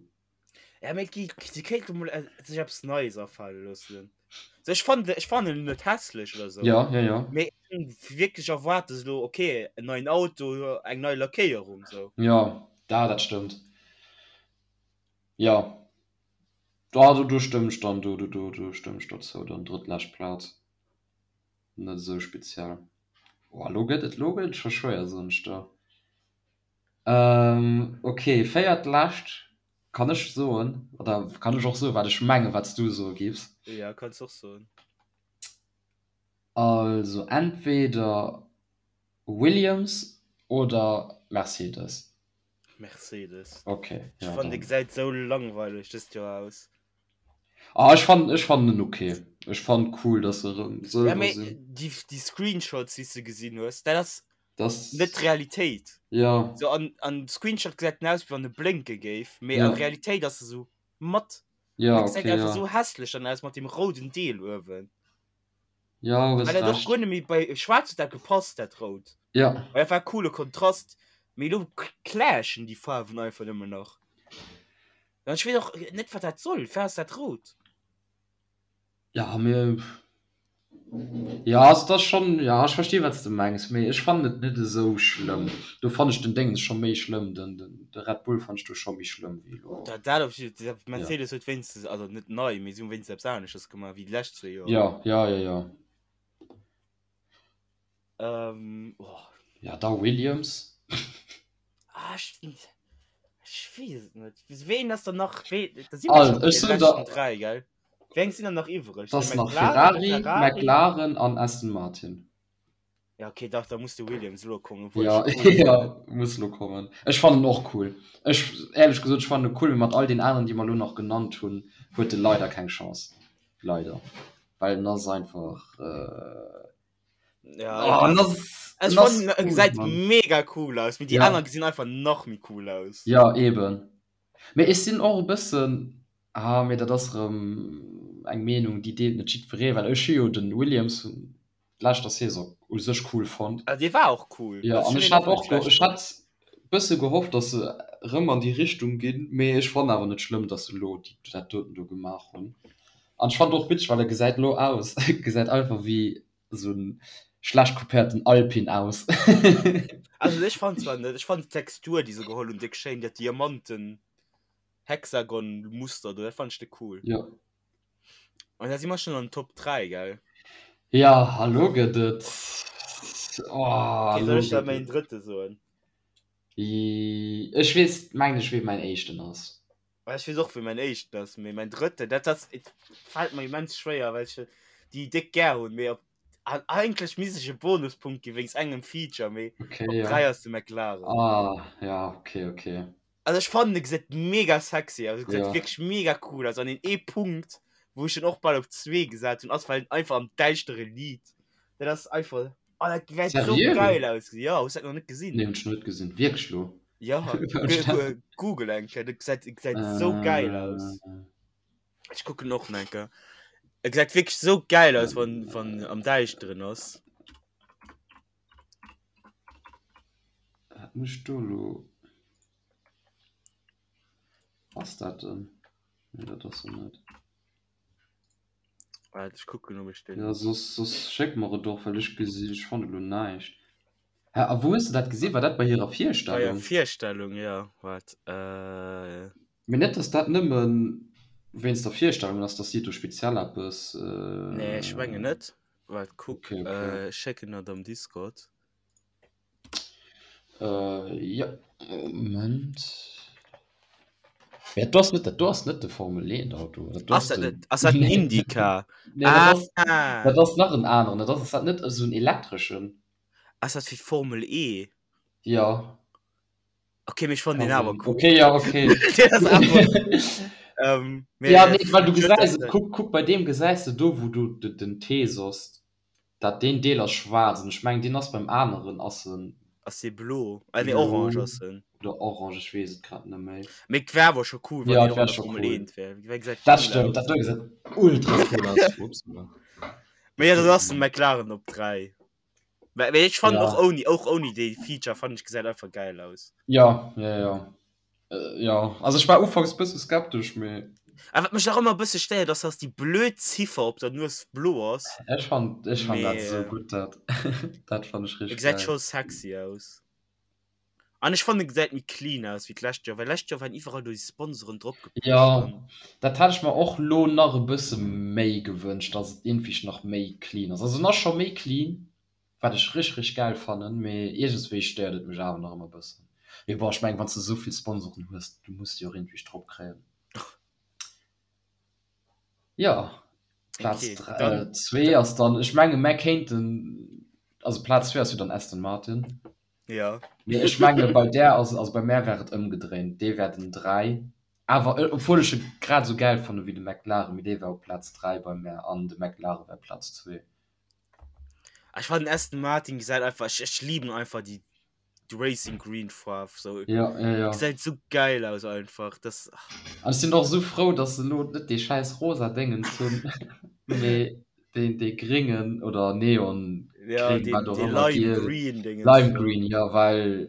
Ja, mee gi, si kéinte mol sech eppes Neies afale loossen. So, ech fannen, ech fannen en net hässlech oder sou. Ja, ja, ja. Mee ech hunn wierklech erwaart, dass elo, okay, en neien Auto, eng nei Lackéierung, sou. Ja, da, dat stëmmt. Ja, da, do, do stëmmen ech dann, do, do, do, do stëmmen ech dozou, dann drëttlescht Plaz. Net esou speziell. Oh, lo gëtt et, lo gëtt et scho schwéier, soen ech der. Ähm, ok, véiertlescht kann ech soen, oder kann ech och soen, wat ech mengen, wat s du soe giffs? Ja, kanns och soen. Also entweder Williams. Oder Mercedes? Mercedes. Okay. Ech ja, fannen, de gesäit sou langweileg dëst Joer aus. Ah, ech fannen, ech fannen en okay. Ech fannen cool, dass se erëm sëlwer ja, sinn. Déi, déi Screenshots, déi s de gesinn hues, dat ass das... net d'Realitéit. Ja. So, an, an Screenshot gesäit en aus, wéi wann e blénke géif, mee ja. an Realitéit ass e sou matt. Ja, okay, gesäit einfach ja. sou hässlech dann aus mat dem rouden Deel uewen. Ja, hues Well dat och recht. guer net méi bei Schwaarz huet dat gepasst, dat Rout. Ja. Well dat war e coole Kontrast, mee elo clashen déi Faarwen einfach nëmmen nach. An ech weess och net, wat dat soll. Firwat ass dat rout? Ja, mee ja, also dat ass schonn, ja, ech versti wat s de mengs, mee ech fannen et net esou schlëmm. Do fannen ech den Déngens scho méi schlëmm, den, den, de Red Bull fannen ech do scho méi schlëmm wéi elo. Dat, dat op jidde Fall. Mercedes huet wéinstens, also net nei, mee si hu wéinstens eppes anesches gemaach wéi déi lescht zwee Joer. Ja, ja, ja, ja. Ähm, oh. Ja, da Williams. Ah, ech, ech weess et net. Ween ass dann nach, wee, da si mer scho bei de leschten 3, gell? Wéi eng sinn dann nach iwwreg? Das nach Ferrari, Ferrari, McLaren an Aston Martin. Ja, okay, dach, da muss de Williams elo kommen. Obwohl ja, ja, muss lo kommen. Ech fannen och cool. Ech, ehrlech gesot, ech fannen cool, mee mat all den aneren, déi mer lo nach genannt hunn, huet e leider keng Chance. Leider. Well en ass einfach. Äh... Ja, oh, en ass, ech fannen, en gesäit mega cool aus, mee déi ja. aner gesinn einfach nach méi cool aus. Ja, eben. Mee ech sinn och e bëssen, ah mee dat ass erëm eng Meenung déi deelt net jiddweree, well ech hu jo de Williams vun leschter Saison u sech cool fonnt. Ah dee war och cool. Jo an ech hat och, ech hat bësse gehofft, datt se erëm an déi Richtung ginn, mee ech fannen awer net schlëmm, datt se elo dat doten do gemaach hunn. An ech fannen och witzeg, well e gesäit elo aus, gesäit einfach wéi esou en schlecht kopéierten Alpine aus. Also ech fand zwar net, ech fand d'Textur déi se geholl hunn déck schéin, dat Diamanten Hexagon Muster do, dat fand ech déck cool. Jo. An da si mer schon an den Top 3, gell? Ja, a lo gëtt et, oh, Okay, lo soll ech da gëtt mäin et. drëtte soen? Ech weess, mengen ech, wee mäin éischten ass. Ech weess och wéi mäin éischten ass, mee mäin drëtten, dat ass, et fält mer immens schwéier, well ech déi déck gär hunn, mee op, an eigentlech misst ech e Bonuspunkt gi wéinst engem Feature, mee Okay, op ja. 3 ass de McLaren. Ah, ja, okay, okay. Also ech fannen e gesäit mega sexy aus, e gesäit Ja. wierklech mega cool aus an deen ee Punkt, wou ech en och bal op zwee gesat hunn, ass well en einfach am däischtere liit. Dat ass einfach, oh dat wäert sou Seriö? geil ausgesinn. Jo, hues dat nach net gesinn? Nee, hunn ech nach net gesinn. Wierklech lo? Ja, Google eng Kéier, dat gesäit, gesäit sou geil aus. Ech kucken och nach eng Kéier. E gesäit wierklech sou geil aus, wann, wann am Däischteren ass. Wat mécht do lo? Ass dat en? Nee, dat ass en net. Waart, ech kucken, ob ech den. Ja, soss, soss schéck mer et och, well ech gesi, ech fanne lo näischt. Hä, a wou hues de dat gesinn? War dat bei hirer Bei hirer Virstellung? Virstellung, ja. Waart, äh. Mee net, dass dat nëmme wéinst der Virstellung ass, dass si do speziell eppes. Nee, ech mengen net. Waart, kuck, Okay, okay. ech schécken der et am Discord. Äh, ja, Moment. Ja, du ass net, dat do ass net de Formel 1 Auto. Dat do Ass ass dat den. net, ass dat den Nee, Indycar? nee, dat ass, Ah, dat ass nach en aneren. Dat ass, ass dat net esou en elektreschen? ass dat fir d'Formel E? Ja, Okay, mee ech fannen ka deen awer sinn. cool. Okay, ja, okay. Deen ass awer, ähm, mee Ja, nee, well du huet gesäis dat et, kuck, kuck, bei deem gesäis de do, wou du de, den T soss, Dat deen Deel ass schwaarz an ech mengen deen ass beim aneren ass en. Ass dee blo? Ah nee orange Blo ass en. oder orange, ech weess et grad net méi. Mee et wär awer scho cool wann Ja deen et och wär an der scho Formel cool. 1 wär. Wär gesäit Dat cool stëmmt, aus. dat do gesäit ultra cool aus. Upsala. Mee ja dat ass den McLaren op 3. Mä mee ech fannen Ja. och ouni och ouni dee Feature fannen ech gesäit einfach geil aus. Ja, ja, ja. Jo, also ech war ufanks bësse skeptesch, mee. A wat mech nach ëmmer e bësse stéiert ass, dass déi blöd Ziffer op der Nues blo ass. Ech fannt, ech fannt dat esou gutt, dat, dat fannt ech E richteg gesäit geil. scho sexy aus. An ech fannen e gesäit méi clean aus wéi d'lescht Joer, well lescht Joer waren iwwerall do déi Sponsoren drop gepecht Jo, an. dat hat ech mer och lo nach e bësse méi gewënscht, dass et iergendwéi nach méi clean ass. Also en ass scho méi clean, Wat ech rich rich gäil fannen, mee iergendswéi stéiert et mech awer nach ëmmer bëssen. Mee bon, ech mengen wanns de esou vill Sponsoren hues, du muss déi och iergendwéi drop kréien. Jo, Plaz Okay, dann, zwee ass dann, ech menge mär kéinten, also Plaz zwee ass jo dann Aston Martin. Ja. Mee ech menge bei där ass, also bei mär wär et ëmgedréint, dee wär den 3. Awer obwuel ech e grad esou gäil fanne wéi de McLaren, mee dee wär op Plaz 3 bei mär an de McLaren wär Plaz 2. Ech fannen Aston Martin gesäit einfach, ech, ech liben einfach déi Racing Green Faarf sou. Ja, ja, ja. Gesäit sou geil aus einfach, das. An ech sinn och esou frou, dass se elo net dee schäiss rosa Déngens hunn, mee deen, dee gréngen oder Neon Ja, gréng, deen, wat och dee ëmmer, Lime giel, Green Déngens Lime do. Green, jo, well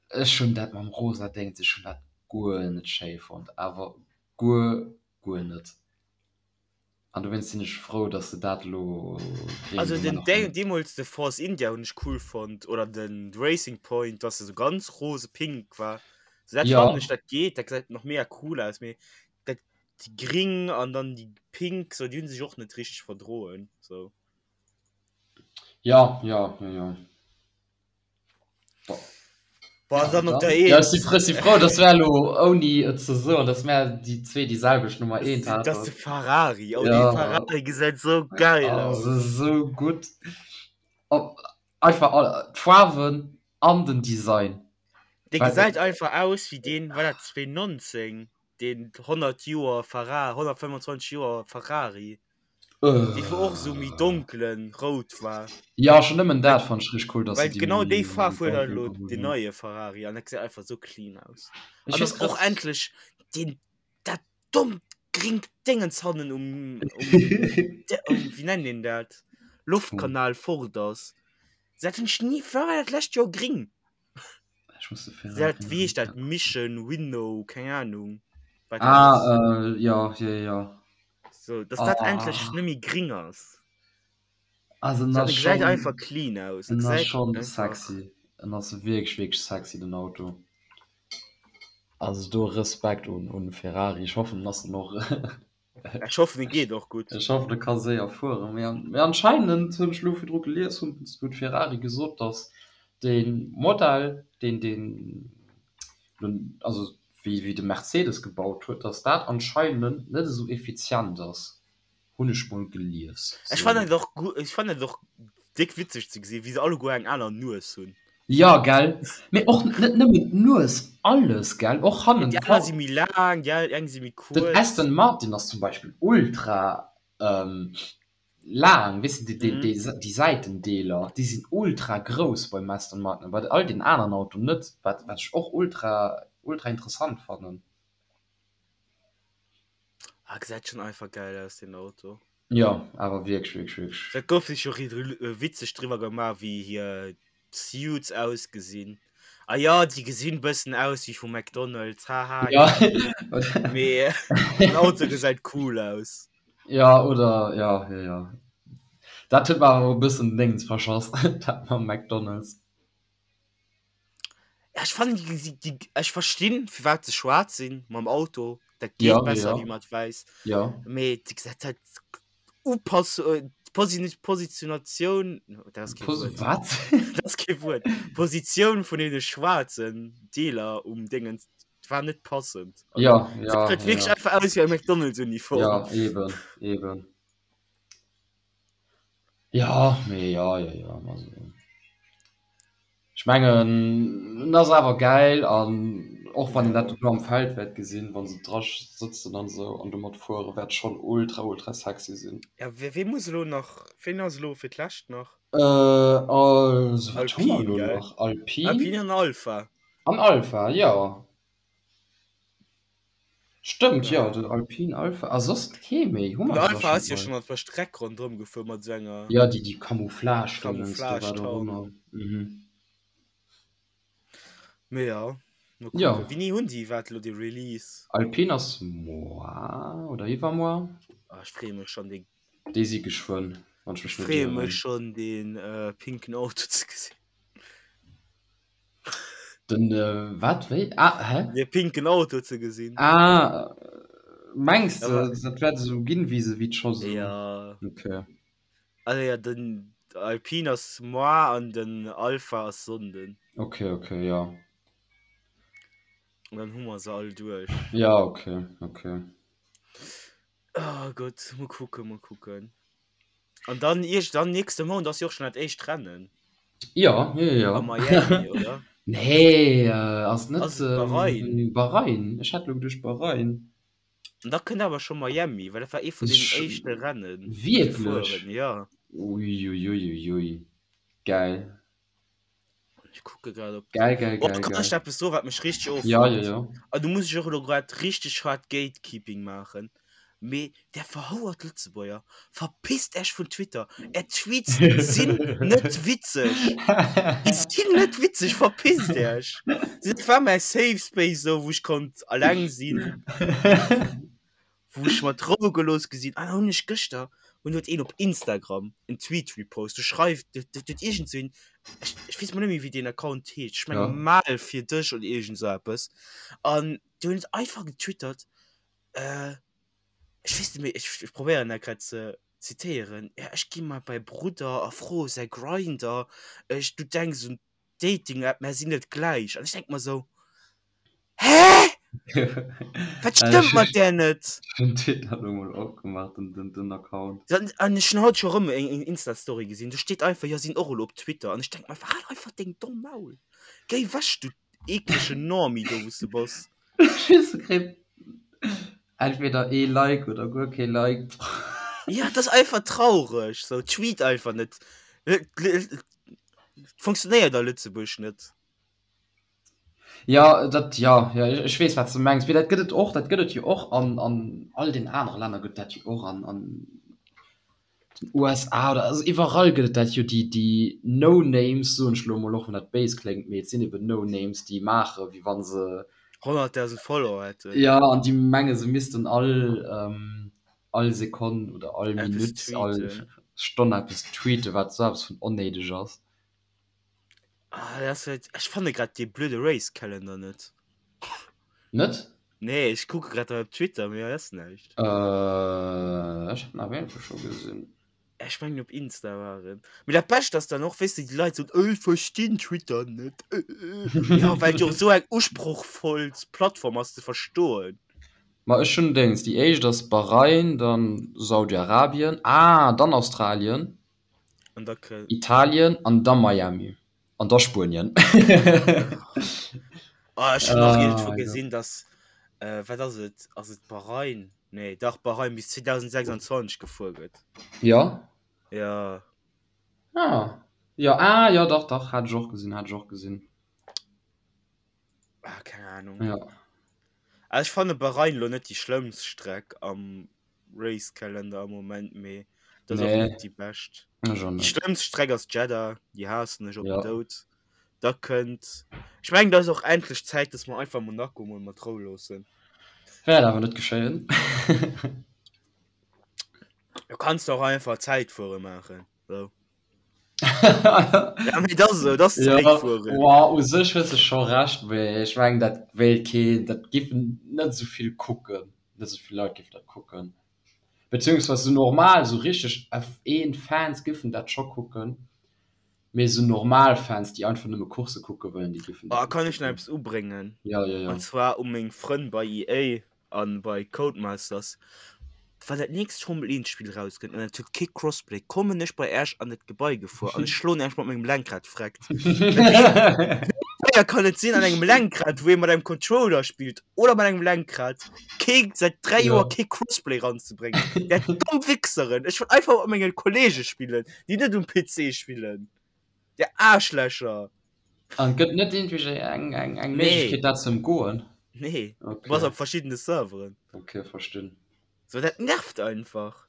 ech hunn dat mam rosa Déngens, ech hunn dat guer net schéi fonnt, awer guer, guer net. An dowéinst sinn ech frou, dass se dat elo gréng Also den gemaach hunn. deemools de Force India hunn ech cool fonnt oder den Racing Point, dass se sou ganz rose pink war. So dat Ja. fannen ech dat geet, dat gesäit nach mega cool aus, mee dat déi gring an dann déi pink sou déi hunn sech och net richteg verdroen sou. Ja, ja, ja, ja. Boah, Ja, dann op dann. der Ja, ech si Eent. frou, si frou, dass mär elo ouni et ze soen, dass mär déi zwee déi selwecht Nummer Das, eent das de haten. Ferrari. Oh, dee Ja. Ferrari gesäit sou geil Oh, aus. se sou gutt. Op einfach all d'Faarwen an den Design. Dee Well gesäit einfach aus wéi deen, war dat 2019, deen 100 Joer Ferrari, 125 Joer Ferrari. Dee wou och sou méi donkelen rout war. Ja, schon nëmmen dat fand ech richteg cool, dass se Well déi genau déi méi Faarf huet donkel elo geholl den hunn. neie Ferrari an dat gesäit einfach sou clean aus. Ech An weess dass och grad. endlech deen dat dommt gringt Déngens hannen um um um wéi nennt een dat Loftkanal fort ass. Dat hunn ech ni, war dat lescht Joer gring? Ech muss de Dat Ferrari wéi heescht dat Mission Winnow, keng Ahnung wat dat Ah ass. äh, ja, ja, ja. So, dass dat endlech Ah. net méi gring ass. Also en So, ass en gesäit schon einfach clean aus. En en ass gesäit schon einfach sexy. En ass wierklech wierklech sexy den Auto. Also do Respekt un un Ferrari. Ech hoffen en ass dann och Ech hoffen en geet och gutt. Ech hoffen e ka séier fueren. Mee mee anscheinend hunn ech elo virdru gelies, hunn huet Ferrari gesot, datt de Modell deen deen also wéi wéi de Mercedes gebaut huet, datt dat anscheinend net esou effizient ass. Hunn ech mol gelies. Ech fannen et och gu ech fannen et och déck witzeg ze gesinn, wéi se alleguer eng aner Nues hunn. Jo, gell? Mee och net nëmmen d'Nues, alles, gell? Och hannen Déi aner si méi laang, déi eng si méi Den kuerz. Aston Martin ass zum Beispill ultra laang, weess de, déi déi Säitendeeler, déi sinn ultra grouss beim Aston Martin, bei all den aneren Autoen net, wat wat ech och ultra ultra interessant fannen. Ah, gesäit schon einfach geil aus den Auto. Jo, awer wierklech, wierklech, wierklech. Dat gouf sech jo witzeg driwwer gemaach wéi hir Suits ausgesinn. Ah jo, déi gesinn bëssen aus wéi vu McDonald's, haha. Ja. Mee den Auto gesäit cool aus. Ja, oder ja, ja, ja. Dat huet mer awer e bëssen den Déngens verschass, dat mam McDonald's. Ja, ech fannen déi gesi déi ech verstinn firwat se schwaarz sinn mam Auto, dat geet Ja, besser ja. wéi mat wäiss. Ja. Mee déi gesäit halt Upass d'Posi Positionatioun, dat ass kee Pos Wuert. wat? Dat ass kee Wuert. D'Positioun vun deene schwaarzen Deeler um Déngens war net passend. Also, Ja, ja, dat huet wierklech ja. einfach aus wéi eng McDonald's-Uniform. Ja, eben, eben. Ja, mee ja, ja, ja, also. Ech mengen en ass awer gäil an och wann een dat elo am Feld wäert gesinn, wa se dra sëtzen an esou an domat fueren, wäert schonn ultra ultra sexy sinn. Ja, wee muss elo nach, ween ass elo fir d'lescht nach? Also wat hu mer Alpine, elo gell? nach? Alpine. Alpine an Alpha. An Alpha, jo. Stëmmt, jo, Ja. den Alpine Alpha. A soss kee méi? Hu Den mer se da Alpha schonn ass jo all? schonn op der Streck ronderëm gefuer mat esou enger Ja, déi, déi Camouflage-Dingens do, wat och Camouflage-Tarnung. ëmmer. Mhm. Mee ja, mol Ja. kucken. Wéini hunn déi iwwerhaapt elo de Release? Alpine ass moar oder iwwermoar. Ah, ech freeë mech schonn, dee Déi si geschwënn, wann ech Ech mech net freeë mech ieren. schonn, dee pinken Auto ze gesinn. Den wat wéi? Ah hä? De pinken Auto ze gesinn. Ah mengs de dat wäert esou ginn wéi se wéi scho sou? Ja. Okay. Also ja den Alpine ass moar an den Alpha ass Sonnden. Okay okay ja. An dann hu mer se all duerch. Ja okay okay. Oh Gott, mol kucken, mol kucken. An dann iergend dann nächste Mount ass jo och schon dat éischt Rennen. Ja, ja, ja. A Miami, oder? Nee, ass net Ass et Bahrain? Bahrain? Ech hat lo geduecht Bahrain. An da kënnt awer scho Miami, well dat war ee vun den éischte Rennen. Wierklech? Ja. Uiuiuiui. Geil. Ech kucke grad op. Geil, geil, Oh, geil, kann geil. ech eppes soen, wat mech richteg offuckt? Ja, ja, ja. An do muss ech och elo grad richteg hart Gatekeeping maachen. Mee där verhouert Lëtzebuerger, verpisst Äech vun Twitter! Är Tweets sinn net witzeg! Déi sinn net witzeg! Verpisst Äech! Dat war mäi Safe Space esou, wou ech konnt alleng sinn, wou ech mat Rou gelooss gi sinn. An da hunn ech gëschter, hunn huet een op Instagram en Tweet repost, do schreift, do huet iergend sou een, ech ech weess mol net méi wéi deen Account heescht, ech menge Mal fir dech oder iergend sou eppes, an do huet einfach getwittert, Äh, ech weess net méi, ech, ech probéieren dat grad ze zitéieren. Ja, ech gi mal bei Brudder a froe säi Grindr. Ech, du denks un Dating-App, mär sinn net gläich. An ech denk mer sou, Hä? Wat stëmmt mat där net? Ech hunn Twitter elo mol opgemaach, den, den, den Account. An, an ech hunn haut scho rëm eng, eng Insta-Story gesinn, do steet einfach, jo, sinn och elo op Twitter. An ech denk mer einfach, hal einfach deng domm Maul. Géi wech, du eklegen Normie do, wou s de bass. Just kritt entweder ee Like oder guer kee Like. Ja, dat ass einfach traureg. So, tweet einfach net. Funktionéiert a Lëtzebuerg net. Ja, dat, ja, ja, ech weess, wat s de mengs. Mee dat gëtt et och, dat gëtt et jo och an, an all den anere Länner gëtt dat jo och an, an den USA oder also iwwerall gëtt et dat jo, déi déi No Names, soen ech elo emol, och wann dat béis kléngt, mee et sinn eben No Names, déi maache wéi wa se 100.000 Follower hätten. Jo, an déi menge se missten all all Sekonn oder all Minutt, all Stonn eppes tweeten, wat esou eppes vun onnéideg ass. Ah, dat ass halt, ech fanne grad dee blöde Race Calendar net. Net? Nee, ech kucke grad hei op Twitter, mee hei ass näischt. Äh, ech hat en awer iergendwou scho gesinn. Ech mengen op Insta war en. Mee dat Bescht ass dann och, weess de, déi Leit soen, ech verstinn Twitter net. Ja, well et jo och esou eng usprochvoll Plattform ass ze verstoen. Ma ech hunn Déngs, déi éischt ass Bahrain, dann Saudi-Arabien, ah, dann Australien. An da kë. Italien an da Miami an da Spuenien. Ah, ech hunn nach iergendwou gesinn, dass, äh, wat ass et, ass et Bahrain? Nee, dach Bahrain bis 2026 gefuer gëtt. Ja? Ja. Ah. Ja, ah, ja, dach, dach, hat ech och gesinn, hat ech och gesinn. Ah, keng Ahnung. Ja. Also ech fanne Bahrain lo net déi schlëmmst Streck am Race Calendar am Moment, mee dat ass och Nee. net déi bescht. Ech och Déi net. schlëmmst Streck ass Jeddah, déi haassen ech op den Ja. Doud. Da kënnt, ech mengen et ass och endlech Zäit, dass mer einfach Monaco mol mat Rou loossen. Wäert awer net geschéien. Du kanns de och einfach Zäitfuere maachen, sou. Ja, mee dat ass esou, dat ass Ja, Zäitfueren. wow, u sech hues de scho Recht, mee ech mengen dat wéilt keen, dat giffen net esou vill kucken, net esou vill Leit giffen dat kucken. Beziehungsweise sou normal, sou richteg F1-Fans giffen dat scho kucken, mee sou normal Fans, déi einfach nëmme Coursse kucke wëllen, déi giffen Oh, dat net kann ech nach kucken. eppes ubréngen? Ja, ja, ja. An zwar u meng Frënn bei EA. An bei Codemasters, wann dat nächst Formel 1 Spill rauskënnt an et huet kee Crossplay, kommen ech bei Äech an dat Gebai gefuer an ech schloen Äech mat mengem Lenkrad freckt. Wéi schwéier kann et sinn an engem Lenkrad, wou ee mat engem Controller spillt oder mat engem Lenkrad, kee säit 3 Joer kee Crossplay ranzebréngen? Där domm Wichseren! Ech wëll einfach mat menge Kollege spillen, déi net um PC spillen. Där Aarschlächer! An gëtt net iergendwéi eng, eng, eng Nee. Méiglechkeet dat ze ëmgoen? Nee, du Okay. bass op verschiddene Serveren. Okay, verstinn. So, dat nervt einfach.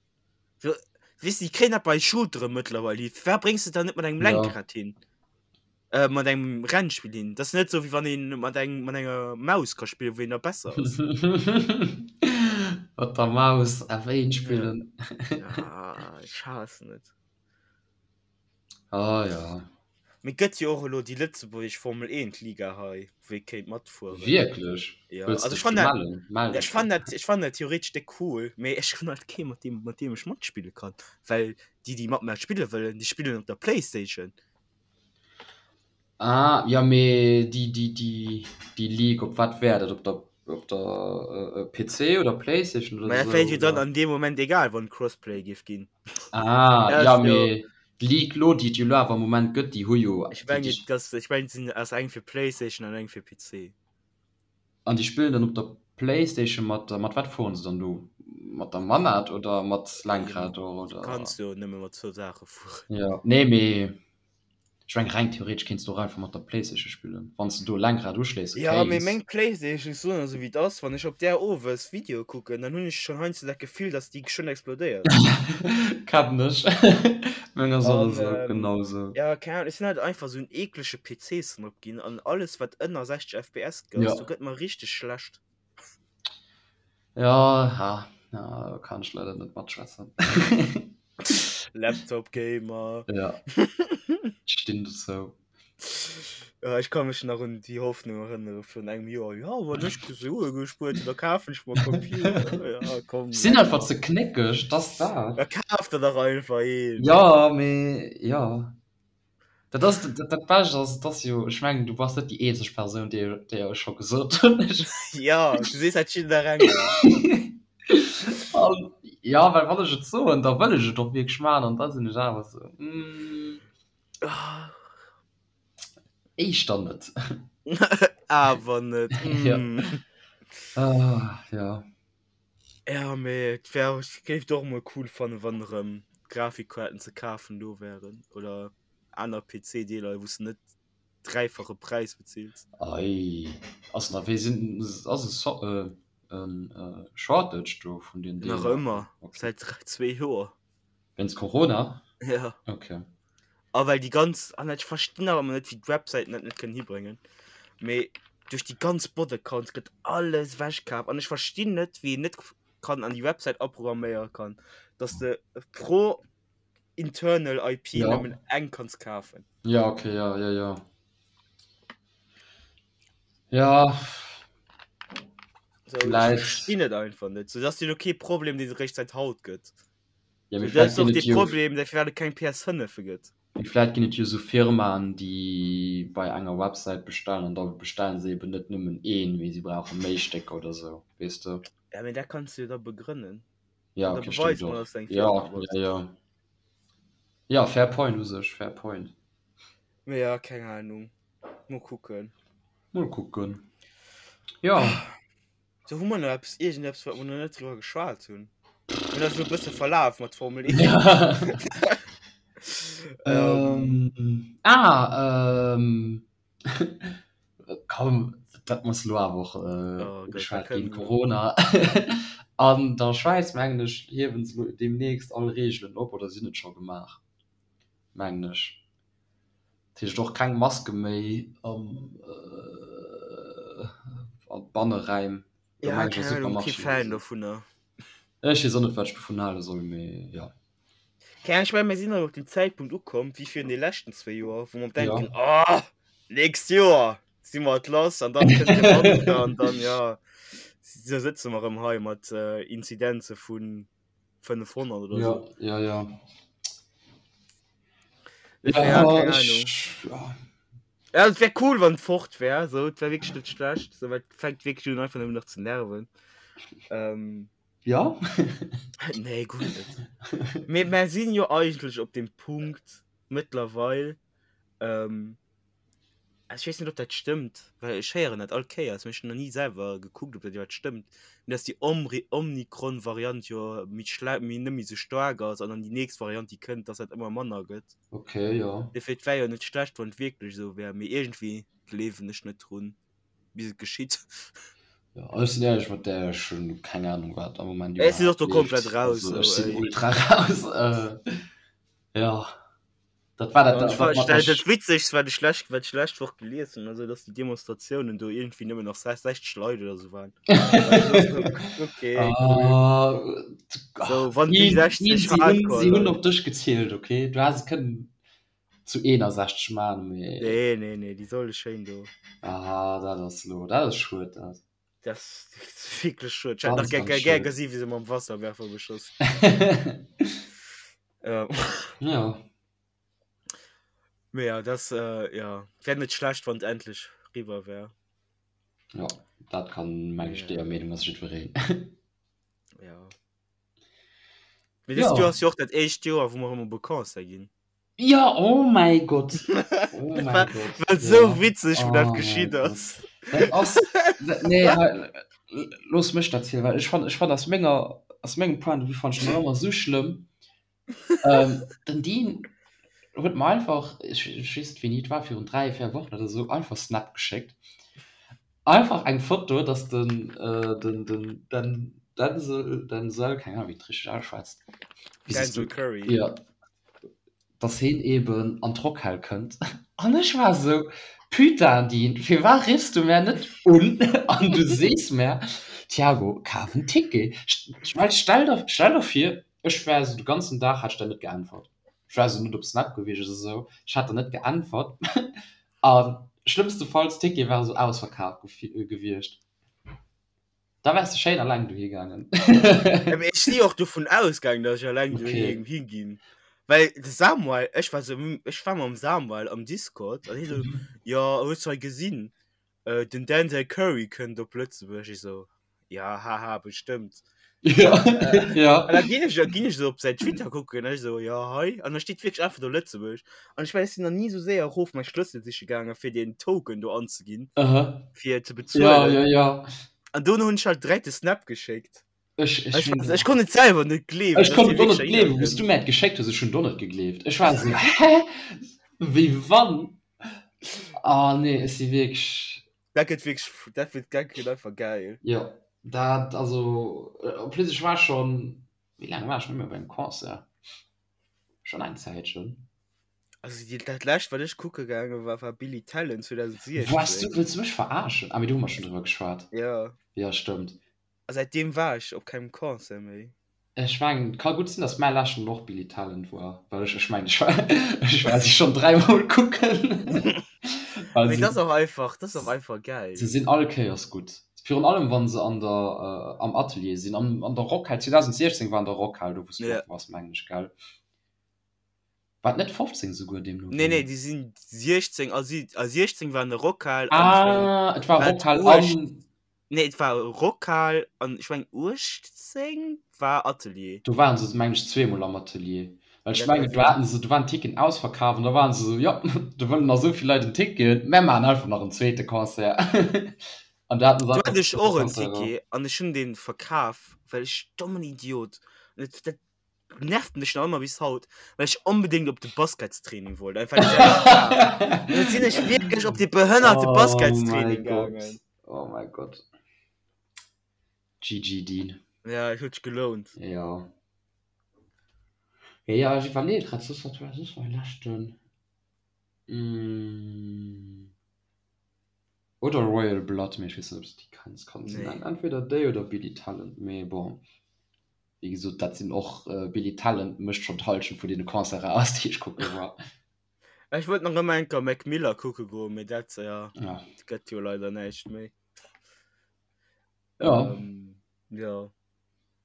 So, weess du, déi kréien dat bei Shootere mëttlerweil hin. Firwat bréngs de dat net mat engem Ja. Lenkrad hin? Äh, mat engem Rennspill hin? Dat ass net sou, wéi wann een mat engem, mat enger Maus ka spillen, wou een da besser ass. Mat der Maus F1 spillen. Ja, ech haassen et. Ah ja. Mee gëtt jo och elo déi lëtzebuergesch Formel 1 Liga hei, wou ee kéint matfueren. Wierklech? Ja, Wëlls also dech ech fannen dat, mellen? Mell ja, dech ech fannen dat, ech fannen dat theoretesch déck cool, mee ech hunn halt kee mat deem, mat deem ech matspille kann, well déi déi mat mer spille wëllen, déi spillen op der Playstation. Ah ja, mee déi, déi, déi, déi Ligue, op wat wär dat? Op der, op der PC oder Playstation oder Mä dat wär esou, jo dann oder? an deem Moment egal, wann Crossplay géif ginn. Ah Dat ja, ass jo. mee. D'League lo, déi et jo lo awer am Moment gëtt, déi hu jo. Ech mengen, dass, ech mengen, et sinn, ass eng fir Playstation an eng fir PC. An déi spillen dann op der Playstation mat, mat wat fueren se dann do? Mat der Manat oder mat Lenkrad och, oder? Du kanns jo nëmme mat zwou Saache fueren. Jo, nee, mee Ech mengen reng theoretesch kéints du och einfach mat der Playstation spillen, wann s de do e Lenkrad uschléisse Ja, mee kéints. meng Playstation, ech soen esou wéi et ass, wann ech op där owes Videoe kucken, dann hunn ech schonn heiansdo dat Gefill, dass déi geschwënn explodéiert. Kennen ech. Meng ass och esou, genau esou. Ja, keng Ahnung, ech sinn halt einfach esou en eeklege PC-Snob ginn an alles wat ënner 60 FPS ass, do gëtt mer richteg schlecht. Ja, ha, ja, do kann ech leider net matschwätzen. Laptop Gamer. Ja. Ech stinn dozou. Ja, ech ka mech nach un déi Hoffnung erënnere vun engem Joer. Ja, wann ech Sue gespuert hunn, da kafen ech mer e Computer. Ja, komm. Ech sinn einfach ze knéckeg, 't ass dat. Da kaf der dach einfach een. Ja, mee ja. Dat ass dat, dat Bescht ass, et ass jo, ech mengen, du bass net déi eenzeg Persoun, déi déi ech scho gesot hunn. Ja, du sees dat jidderengem. An ja, well wann ech et soen, da wëll ech et och wierklech maachen an da sinn ech awer esou, mm, éischter net. Awer net, Ja. mm. Ah, ja. Ja, mee et wär, ech géif et och emol cool fannen, wann erëm Grafikkaarten ze kafen do wären oder aner PC-Deeler, wou s de net dräifache Präis bezills. Ei, ass nach, wéi sinn, ass e So, en Shortage do vun den Nach Deeler? ëmmer, Okay. säit zwee Joer. Wéinst Corona? Ja. Okay. A well déi ganz, an ech verstinn awer ëmmer net, wéi d'Websäiten dat net kënnen hibréngen, mee duerch déi ganz Bot-Accounts gëtt alles ewechkaf an ech verstinn net, wéi een net kann an déi Websäit aprogramméiere kann, dass de pro internal IP Ja. nëmmen eng kanns kafen. Ja, okay, ja, ja, ja. Ja. So, ech Vläicht. verstinn et einfach net. So, dat ass jo lo kee Problem, deen et eréischt säit haut gëtt. Ja, mee Dat vläicht ass och ginn de et jo Problem, dat firwat et keng PS5 gëtt. Mee vläicht ginn et jo esou Firmaen, déi bei enger Websäit bestellen an da bestellen se eben net nëmmen een, mee si brauche méi Stécker oder esou, weess de? Ja, mee dat kanns du jo da begrënnen. Ja, An da okay, stimmt beweis mol, och. dass du eng Ja, Firma bass. ja, ja. Ja, fair point u sech, fair point. Mee ja, keng Ahnung. Mol kucken. Mol kucken. Ja. So hu mer nach eppes iergendeppes wat mer nach net driwwer geschwat hunn. Mir hunn eis elo e bësse verlaf mat Formel 1. Ja. Ähm. Ähm, ah, ähm, komm, dat muss elo awer och äh, Oh Gott, da ugeschwat ginn, kënnen Corona. An der Schwäiz, mengen ech, hiewen se elo deemnächst all Reegelen op oder sinn et scho gemaach, mengen ech. Dat heescht och keng Maske méi am a Banneräim, do Ja, mengen ech a keng Ahnung, kee Supermarchéen Fan oder sou. dovunner. Ech weess och net wat ech dovun hale soll, mee jo. Keng Ahnung, ech mengen mir sinn erëm op dem Zäitpunkt ukomm wéi virun de leschten zwéi Joer, wou mer Ja. denken, oh, nächst Joer si mer et lass an dann kënnt de Wanter an dann, ja, da sëtze mer erëm hei mat Inzidenze vu 500 oder Ja, sou. ja, ja. Ja, Ja, keng ech, Ahnung. ja. Ja, et wär cool, wann et fort wär, so, et wär wierklech net schlecht, so, well et fänkt wierklech un einfach nëmmen nach ze nerven. Ähm, Ja? nee, guer net. Mee mer sinn jo eigentlech op dem Punkt mëttlerweil, ähm, Ech weess net, ob dat stëmmt, well ech héieren dat all Kéiers, mee ech hunn nach ni selwer gekuckt, ob dat iwwerhaapt stëmmt, mee dass déi Omri Omikron-Variant jo méi schle méi net méi sou staark ass an dann déi nächst Variant, déi kënnt, dass dat ëmmer manner gëtt. Okay, jo. Dofir, et wär jo net schlecht, wann et wierklech esou wär, mee iergendwéi gleewen ech net drun, bis et geschitt. Jo, ech sinn éierlech mat där, ech hunn keng Anung, wat am Moment Ech sinn och iwwerhaapt do komplett leeft. raus, Also sou, ech sinn ey. ultra raus. Jo. Dat war dat, An ech dat war, mat dat, der dat Witzegst, wat ech lech, wat ech lescht Woch gelies hunn, also dass déi Demonstratiounen do iergendwéi nëmmen nach 60 Leit oder sou waren. Okay, cool. Ah, So, wann déi si 60 si hunn, Hardcore si hunn Leit. op dech gezielt, okay? Du häss et kënnen zu 61 man, mee. Nee, nee, nee, déi solle schéin do. Ah, dat ass lo, dat ass schued, dat. Dat ass wierklech schued. Ech hätt nach Ganz, gär, ganz gär, gär schued. gesi wéi se mam Wasserwerfer beschoss. Ja. Ja. Mee ja, das äh, ja, wär net schlecht, wann et endlech riwwer wär. Ja, dat kann meng ech Ja. deeër Meenung ass jiddwereen. Ja. Mee dëst Joer Ja. ass jo och dat éischt Joer, wou mer erëm op e Concert ginn. Ja, oh mäi Gott! Oh Dat mäi war, Gott, war sou ja. witzeg, wou dat Oh mäi geschitt Gott. ass. Dat ass, dat, nee, hei, looss mech dat zielen, well ech fann, ech fann aus menger, aus mengem Point de vue fann ech dat ëmmer sou schlëmm. Ähm, den Dean huet mer einfach, ech, ech weess net wéini et war, virun 3, 4 Wochen oder sou, einfach Snap geschéckt. Einfach eng Foto, dass den, äh, den, den, den Denzel, Denzel, keng Ahnung, wéi et richteg ausschwätzt. Wéi sees Denzel du? Curry. Ja. Dass heen eben an d'Rockhal kënnt. An ech war esou, Putain Dean, firwat riffs du mär net un an du sees mär, Thiago, kaf en Ticket. Ech well, stell der, stell der vir, ech wär esou de ganzen Dag, hätt ech der net geäntwert. Ech wär esou net op Snap gewiescht oder esou, ech hätt der net geäntwert. A schlëmmstefalls, d'Tickete ware sou ausverkaf gewiescht. Da wärs de schéin alleng dohi gaangen. Ja, mee ech si och dovun ausgaangen, datt ech alleng dohi Okay. hinginn. Well de Samuel, ech war sou, ech war mam Samuel am Discord an hie sou, jo, hues du hei gesinn, den Denzel Curry kënnt op Lëtzebuerg. Ech sou, Ja, haha, bestëmmt. Ja, ja. An da ginn ech, ginn ech so op säin Twitter kucken, an ech so, ja, hei. An da steet wierklech einfach do Lëtzebuerg. An ech mengen, ech sinn nach ni esou séier erof mäi Schlëssel siche gaangen, fir deen Token do anzeginn, Aha. fir ze Ja, bezuelen. ja, ja. An dono hunn ech halt direkt de Snap geschéckt. Ech, ech Ech, hunn ech konnt et selwer net gleewen, Ech dass konnt hie et och net wierklech gleewen, heihinner wou s du kënnt. mär et geschéckt hues. Ech hunn et och net gegleeft. Ech war esou, hä? Wéi wann? Ah, nee, ech si wierklech. Dat gëtt wierklech, dat gëtt, dat gëtt einfach geil. Jo, dat, also, en plus ech war schonn, wéi laang war ech net méi op engem Concert? Schonn eng Zäitchen. Also déi, dat lescht wat ech kucke gaange war, war Billy Talent Waars du, 2016. wëlls du mech verarschen? Ah, mee do hu mer schonn driwwer geschwat. Jo. Jo, stëmmt. A säitdeem war ech op kengem Concert méi. Ech mengen, et ka gutt sinn, datt mäi leschten och Billy Talent war, well ech, ech mengen, ech war, ech war si schonn dräimol kucken. Well Mee se, dat ass och einfach, dat ass och einfach geil. se sinn all Kéiers gutt. Virun allem wa se an der, am Atelier sinn, an, an der Rockhal. 2016 war an der Rockhal, do wou s du Ja. och wars, mengen ech, gell? War et net 15 souguer, deemno Nee, nee, wéi? déi sinn 16 a si, a 16 war an der Rockhal an ech mengen, Ah, et war wat Rockhal 8, an. Nee, et war Rockhal an ech mengen 18 war Atelier. Do waren se mengen ech zweemol am Atelier. Well ech Dat mengen kann do sinn. haten se, do waren d'Ticketen ausverkaf an da waren se esou, jo, do wëllen nach esou vill Leit en Ticket, mär maachen einfach nach en zweete Concert. An da haten se Do einfach hat en ech zweete och en Concert erëm. Ticket an ech hunn dee verkaf, well ech dommen Idiot, an dat, dat nervt mech nach ëmmer bis haut, well ech onbedéngt op de Basketstraining wollt, einfach déi selwecht Dag. An da sinn ech wierklech op dee behënnerte Oh mäi Basketstraining Gott, gaangen. oh mäi Gott. GG Dean. Ja, et huet sech gelount. Jo. Jo, jo, ech iwwerleeë grad soss, wat war soss mäi leschten? Oder Royal Blood, mee ech weess net, ob s de déi kenns. Kann sinn. Nee. Entweder déi oder Billy Talent, mee bon. Wéi gesot, dat sinn och, Billy Talent mécht schonn d'Hallschent vun deene Concerten aus, déi ech kucke war. Ech wollt nach ëmmer eng Kéier Mac Miller kucke goen, mee dat, ja, Ja. dat gëtt jo leider näischt méi. Ja. Ähm, ja.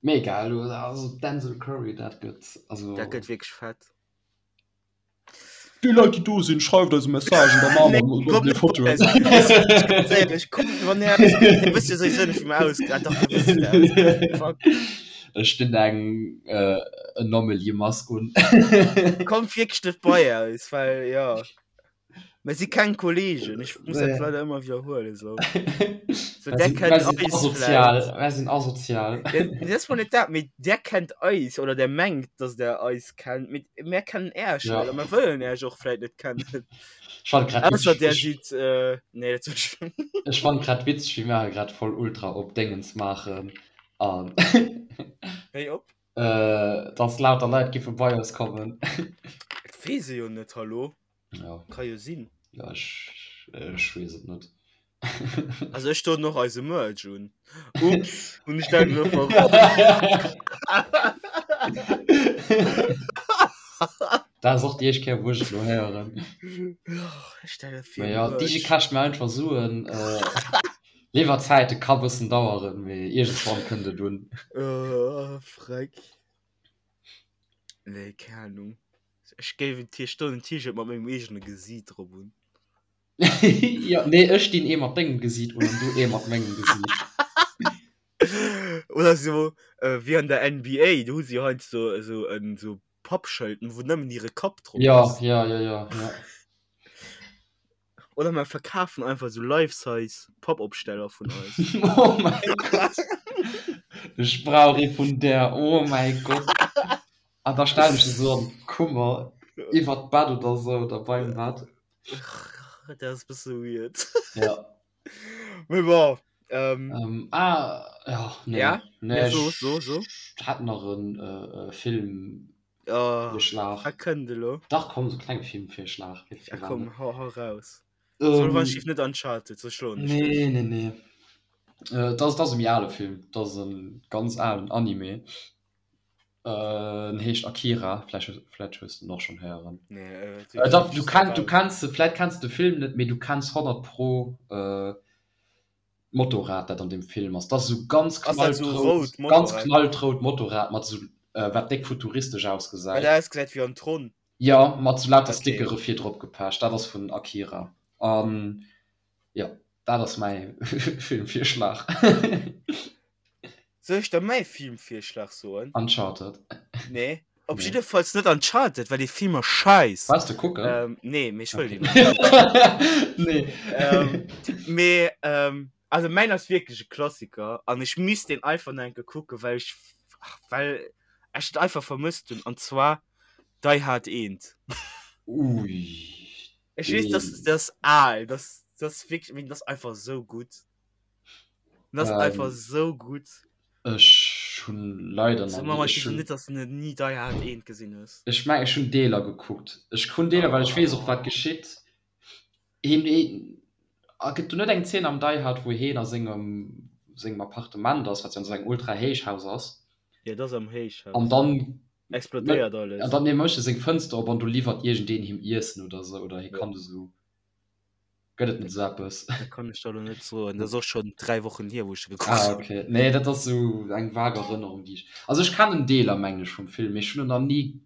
Mee egal, also Denzel Curry, dat gëtt, also. Dat gëtt wierklech fett. Déi Leit déi do sinn, schreift eis e Message an da maache mer Nee, komm e net Foto. bei eis. Ganz éierlech, kommt, wann Är eis, Dir wësst jo souwisou net wéi mer ausgesinn, ah dach, Dir wësst wéi mer ausgesinn, fuck. Ech dinn eng Anomaly-Mask un. Kommt wierklech net bei eis, well jo. Mir si keng Kollegen, ech muss dat leider ëmmer widderhuelen esou. So, Mer der sinn, kennt mer sinn eis asozial, vläicht. mer sinn asozial. Ja, dat ass mol net dat, mee der kennt eis oder der mengt, dass der eis kennt, mee mär kennen Äech Ja. net a mer wëllen Äech och vläicht net kennen. Ech fand grad Ausser witzeg, der ech, sidd, äh, nee, dat soll ech. ech fand grad witzeg, wéi mer grad voll ultra op Déngens maachen an Wéi op? äh, dass lauter Leit giffe bei eis kommen. Dat weess ee jo net, hallo? Ja. Ka jo sinn. Ja, ech, ech weess et net. Also ech doen och eise Merch un. Ups, hunn ech dat elo verroden? Dat ass och déi éischt Kéier, wou ech et elo héieren. Ech stelle fir Mä ja, Merch. Digi kascht mir einfach Suen. Äh, Liwwerzäite ka bëssen daueren, mee iergendwann kënnt et un. Oh, freck. Nee, keng Ahnung. Ech géif en T ech doen en T-Shirt mat mengem eegene Gesiit drop un. Jo, nee, ech dinn ee mat dengem Gesiit un an du ee mat mengem Gesiit. Oder sou wéi an der NBA, do hu se jo heiansdo esou en esou. Pappschëlten, wou nëmmen hire Kapp drop Ja, ass. ja, ja, ja, ja. Oder mer verkafen einfach sou Life-Size Pappopsteller vun eis. Oh mäi Gott! Ech brauch ee vun där, oh mäi Gott! An da stellen ech se sou an d'Kummer, iwwert d'Bett oder sou, oder beim Bett. Dat ass e bësse weird. Ja. Mee bon. Ähm, ähm, ah, ja, nee. Ja? Nee, ja, so, so, so. Ich hat nach en äh, äh, Film oh, Vorschlag. Wat kënnt elo? Dach, komm, so klenge Filmvirschlag. Ja, komm, hau, hau raus. Ähm, so, wann ich net Uncharted, so schloen ich Nee, nee, nee. Äh, das, das ass e méi ale Film. Das ass en ganz alen Anime. En heescht Akira, vläicht vläicht hues de en och schonn héieren. Nee, äh, äh, dach, du kenn, du kenns se, vläicht kenns de Film net, mee du kenns 100 pro äh, d'Motorrad, dat an deem Film ass. Dat ass esou ganz Ass dat esou knallrout, rout ganz Motorrad? knallrout Motorrad mat esou, äh, wat déck futuristesch Wat ausgesäit. ausgesäit wéi an Tron? Jo, mat esou lauter Okay. Stickere vir drop gepecht. Dat ass vun Akira. An jo, dat ass mäi Filmvirschlag. Soll ech der mäi Filmvirschlag soen? Uncharted. Nee, op Nee. jiddefalls net Uncharted, well dee Film ass scheiss. Waars de kucken? Ähm, nee, mee ech wëll Okay. deen och net kucken. Nee. Ähm, mee, ähm, also mäin ass wierklech e Klassiker an ech misst deen einfach nach eng Kéier kucken, well ech, ach, well ech et einfach vermësst hunn, an zwar Die Hard 1. Ui, Ech weess, dass, deen. dat ass al, dat, dat ass wierklech, mee dat ass einfach esou gutt. Das ähm, einfach so gut. Ech hun leider so, Mama, ich hun net dass du nie Die Hard 1 gesinn hues. Ech meng ech hun Deeler gekuckt. Ech hun Deeler well ech weess och wat geschitt. Heen heen a gëtt do net eng Zeen am Die Hard wou heen a sengem sengem Appartement ass, wat jo an esou engem ultra Héichhaus ass. Ja, dat ass am Héichhaus. An dann explodéiert alles. An dann nee mécht e seng Fënster op an do liwwert iergendeen him Iessen oder sou oder hie Ja. kann esou. Gëtt et net esou eppes? Dat kann ech der elo net soen. Dat ass och schonn 3 Wochen hier, wou ech e gekuckt Ah, hunn. okay. Nee, dat ass esou eng vag Erënnerung, déi ech. Also ech kennen Deeler, mengen ech, vum Film, mee ech hunn en nach ni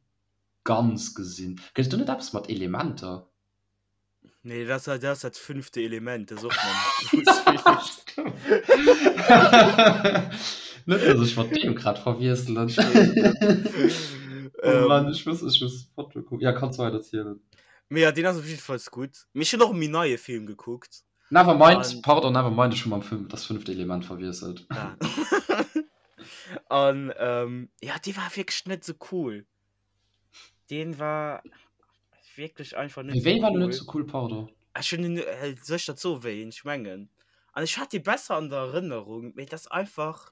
ganz gesinn. Gëtt et do net eppes mat Elementer? Nee, dat ass, dat ass dat fünfte Element, dat ass och mam Bruce Willis. Net, dass ech mat deem grad verwiesselen. Oh Mann, ech muss, ech muss d'Foto kucken. Ja, kanns weider zielen. Mee ja, deen ass op jiddefalls gutt. Mee ech hunn och e méi neie Film gekuckt. Never mind, An pardon, never mind, ech hu mam Film Das fünfte Element verwiesselt. Ah. An ähm, ja, dee war wierklech net sou cool. Deen war wierklech einfach net Mee sou wéi war den net cool. sou cool, pardon? Ech hunn en, äh, soll ech dat soen, wéi een ech mengen? An ech hat dee besser an der Erënnerung, mee dat ass einfach,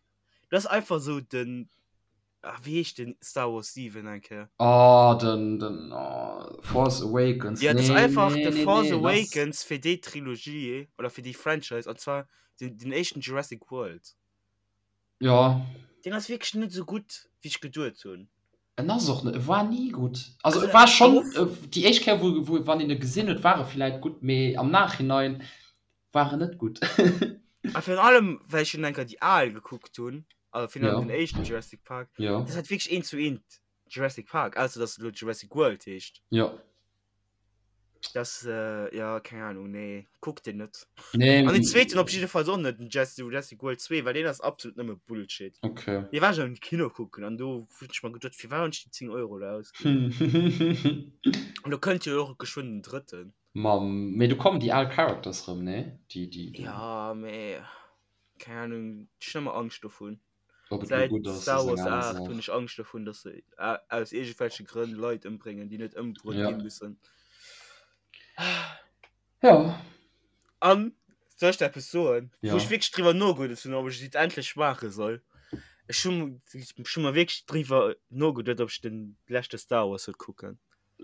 dat ass einfach sou den, Ah, wéi heescht den Star Wars 7 eng Kéier? Oh, den, den oh, Force Awakens. Ja, das nee, einfach nee, The nee, Force nee, Awakens fir déi Trilogie oder fir déi Franchise an zwar den, den éischten Jurassic World. Ja. Den ass wierklech net sou gutt, wéi ech geduet hunn. En ass och net, e war ni gutt. Also, Also, e war schonn, gouf. Déi éischt Kéier, wou, wou, wann een e gesinn huet, war e villäit gutt, mee am Nachhinein war en net gutt. A virun allem, well ech schon eng Kéier déi al gekuckt hunn, also virun allem Ja. den éischten Jurassic Park, Ja. dat ass wierklech eent zu eent Jurassic Park, ausser dass et elo Jurassic World heescht. Ja. Das, äh, ja, keng Ahnung, nee, kuckt den net. Nee. An den zweeten op jiddefalls och net, den Jurassic World 2, well deen ass absolut nëmme Bullshit. Okay. Dee war ech am Kino kucken an do hunn ech mer geduet, firwat hunn ech déi 10 Euro elo ausginn? An do kënnt jo och geschwënn den drëtten. Mam, mee do kommen déi al Characters rëm, nee? Déi, déi, déi. Ja, mee keng Ahnung, ech hunn ëmmer Angscht dovun. Ob et elo Säit gutt ass, Star ass eng Wars aner 8 Saach. hunn ech Angscht dovun, dass se aus iergendwelche Grënn Leit ëmbréngen, déi net ëmbruet Ja. gi mussen. Ja. An, soll ech der eppes soen, Ja. wou ech wierklech driwwer nogeduet hunn, ob ech et endlech maache soll? Ech hunn, ech hu mer wierklech driwwer nogeduet, ob ech den leschte Star Wars soll kucken.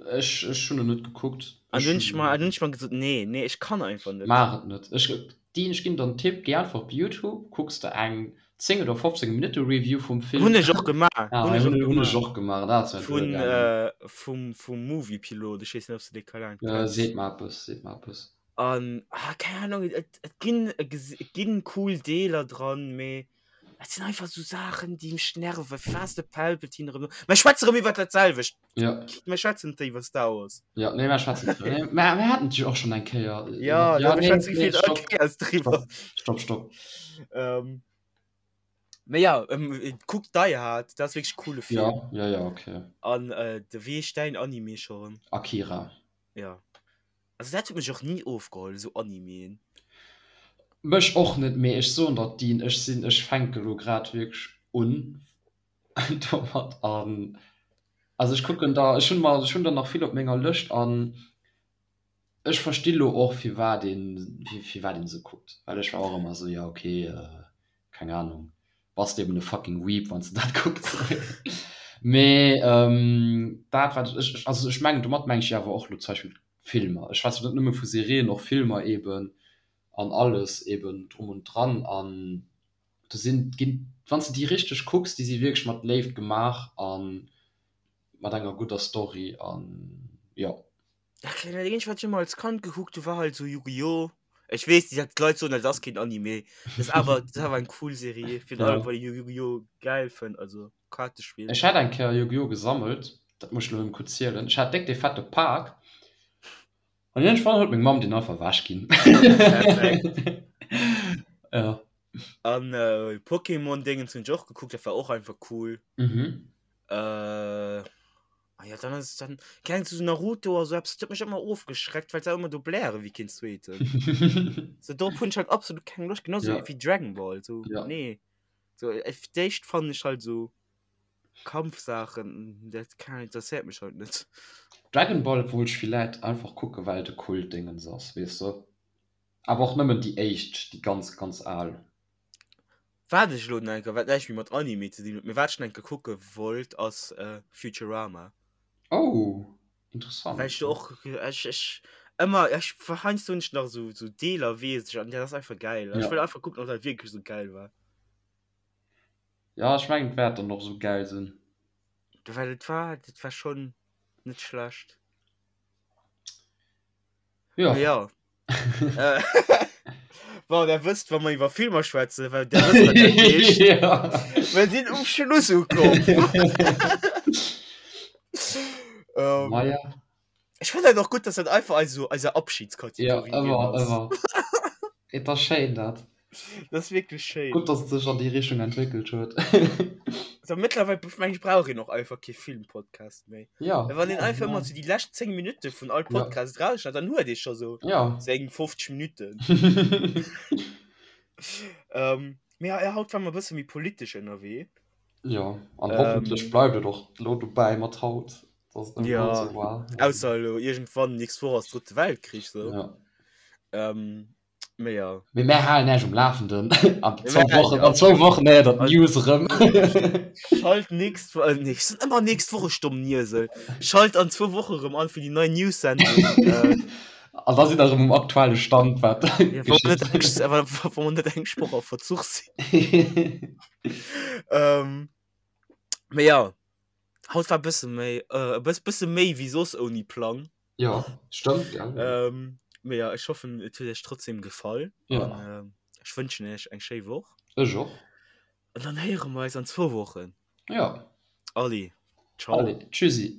Ech, ech hunn en net gekuckt. An Ech dunn ech mer, hunn. dunn ech mer gesot, nee, nee, ech kann einfach net. Maach et net. Ech, Dean, ech ginn der en Tipp, géi einfach op Youtube, kucks der eng 10 oder 15 Minutte Review vum Film. Hunn ech och gemaach, Ah, hunn ech och hunn, hunn ech gemaach. och gemaach, dat ass mir Vun, duergaangen. äh, vum, vum Moviepilot, ech weess net, ob s de dee Kanal Äh, kenns. seet mer eppes, seet mer eppes. An, ah, keng Ahnung, et, et ginn, et ginn cool Deeler dran, mee Et sinn einfach sou Saachen, déi mech nerven. Firwat ass de Palpatine erëm do? Mer schwätze erëm iwwer dat selwecht. Ja. Mer schwätzen net iwwer Star Wars. Ja, nee, mer schwätzen net. Nee, mer, mer haten et jo och schonn eng Kéier. Ja, ja mir nee, schwätzen nee, gefilt all stopp. Kéiers driwwer. Stopp, stopp. Ähm. Mee ja, ähm, kuck Die Hard, dat ass wierklech coole Film. Ja, ja, ja, okay. An äh, de wéi heescht däin Anime scho rëm? Akira. Ja. Also dat huet mech och ni ofgeholl, esou Animeen. Mech och net, mee ech soen der Dean, ech sinn, ech fänke lo grad wierklech un domat an also ech kucken der, ech hunn mer, ech hunn der nach vill op menger Lëscht an Ech versti lo och firwat een firwat een se kuckt, well ech war och ëmmer esou jo ok keng Ahnung bass de eben e fucking Weeb wanns de dat kucks. Mee dat wat ech also ech mengen domat mengen ech jo awer och lo zum Beispill Filmer, ech schwätzen net nëmme vu Serien, och Filmer eben an alles eben drum und dran an do sinn ginn wanns de déi richteg kucks, déi si wierklech mat Léift gemaach an mat enger gudder Story an jo. Ja, keng Ahnung, dat wat ech ëmmer als Kand gekuckt hu war halt sou Yu-Gi-Oh! Ech weess, déi Leit soen, dat ass keen Anime. Dat ass awer, dat ass awer eng cool Serie, virun allem well ech Yu-Gi-Oh! Gäil fënn, also Kaartespill. Ech hat eng Kéier Yu-Gi-Oh! Gesammelt, dat muss ech elo erëm kuerz zielen. Ech hat déck dee fette Pak an iergendwann huet meng Mamm deen einfach ewech ginn. Perfekt. Ja. An Pokémon-Dingens hunn ech och gekuckt, dat war och einfach cool. Mhm. Äh. Ah ja, dann ass dann keng so Naruto oder so etwas, dat huet mech ëmmer ofgeschreckt, well se ëmmer do bläre wéi keen zweeten. So dorop hunn ech halt absolut keng Loscht, genauso Ja. wéi Dragon Ball, so Ja. nee. So äh, fir d'éischt fannen ech halt so Kampfsaachen, dat kann interesséiert mech halt net. Dragon Ball wollt ech villäit einfach kucken, well et e Kultdingens ass, weess de. Awer och nëmmen déi éischt, déi ganz, ganz al. Wat ech elo nach eng Kéier, wat näischt méi mat Anime ze dinn huet, mee wat ech nach eng Kéier kucke wollt, ass Futurama. Oh, interessant. Well ech do och, ech, ech ëmmer, ech, heiansdo hunn ech nach esou, esou Deeler weess ech an dat ass einfach gäil. Ech wëll einfach kucken, ob dat wierklech esou gäil war. Jo, ech mengen et wäert dann och esou gäil sinn. Well et war, dat war schonn net schlecht. Ja. Ja. Äh, bon, der wësst, wa mer iwwer Filmer schwätzen, well der wësst, wat dat heescht. ja. Wir sinn um Schluss ukomm. ähm, Naja. ich fand dat och gutt, dass dat einfach eis so eise Ja, Abschiedskategorie ginn ëmmer, ass. ëmmer. Et ass schéin dat. Das ist wirklich schéin. Gutt, dass et sech an déi Richtung entwéckelt huet. So, mittlerweile meng ich brauch een och einfach kee Filmpodcast méi. Ja. Well wann een einfach ëmmer so déi lescht 10 Minutte vun all Podcast ja. rausschneit, dann huet ee scho so ja. seng 50 Minutten. ähm, mee ja, haut war mer e bësse méi politesch ënnerwee. Ja, an hoffentlech ähm, bleift et och lo dobäi mat haut. Dass et ja, so war. Ausser elo iergendwann nächst Woch ass drëtte Weltkrich so. Ja. Ähm, Mee ja. Mee mär halen Äech um Lafenden. An zwou Wochen, an zwou Wochen héiert der d'News erëm. Schalt nächst Wo-, nee, ech soen ëmmer nächst Woch, ech domm Niesel. Schalt an zwou Woche erëm an fir déi nei News-Sendung. An da sidd der erëm um aktuelle Stand, wat Ja, wa mer net eng, wa, wa mer net eng Woch a Verzuch sinn. Ähm, mee ja, haut war e bësse méi, e bëss, bësse méi wéi soss ouni Plang. Ja, stëmmt, gell? Ähm, mee ja, ech hoffen, et huet iech trotzdem gefall. Ja. An ähm, ech wënschen iech eng schéi Woch. Ech och. An dann héiere mer eis an zwou Wochen. Ja. Allez, ciao. Allez, tschüssi.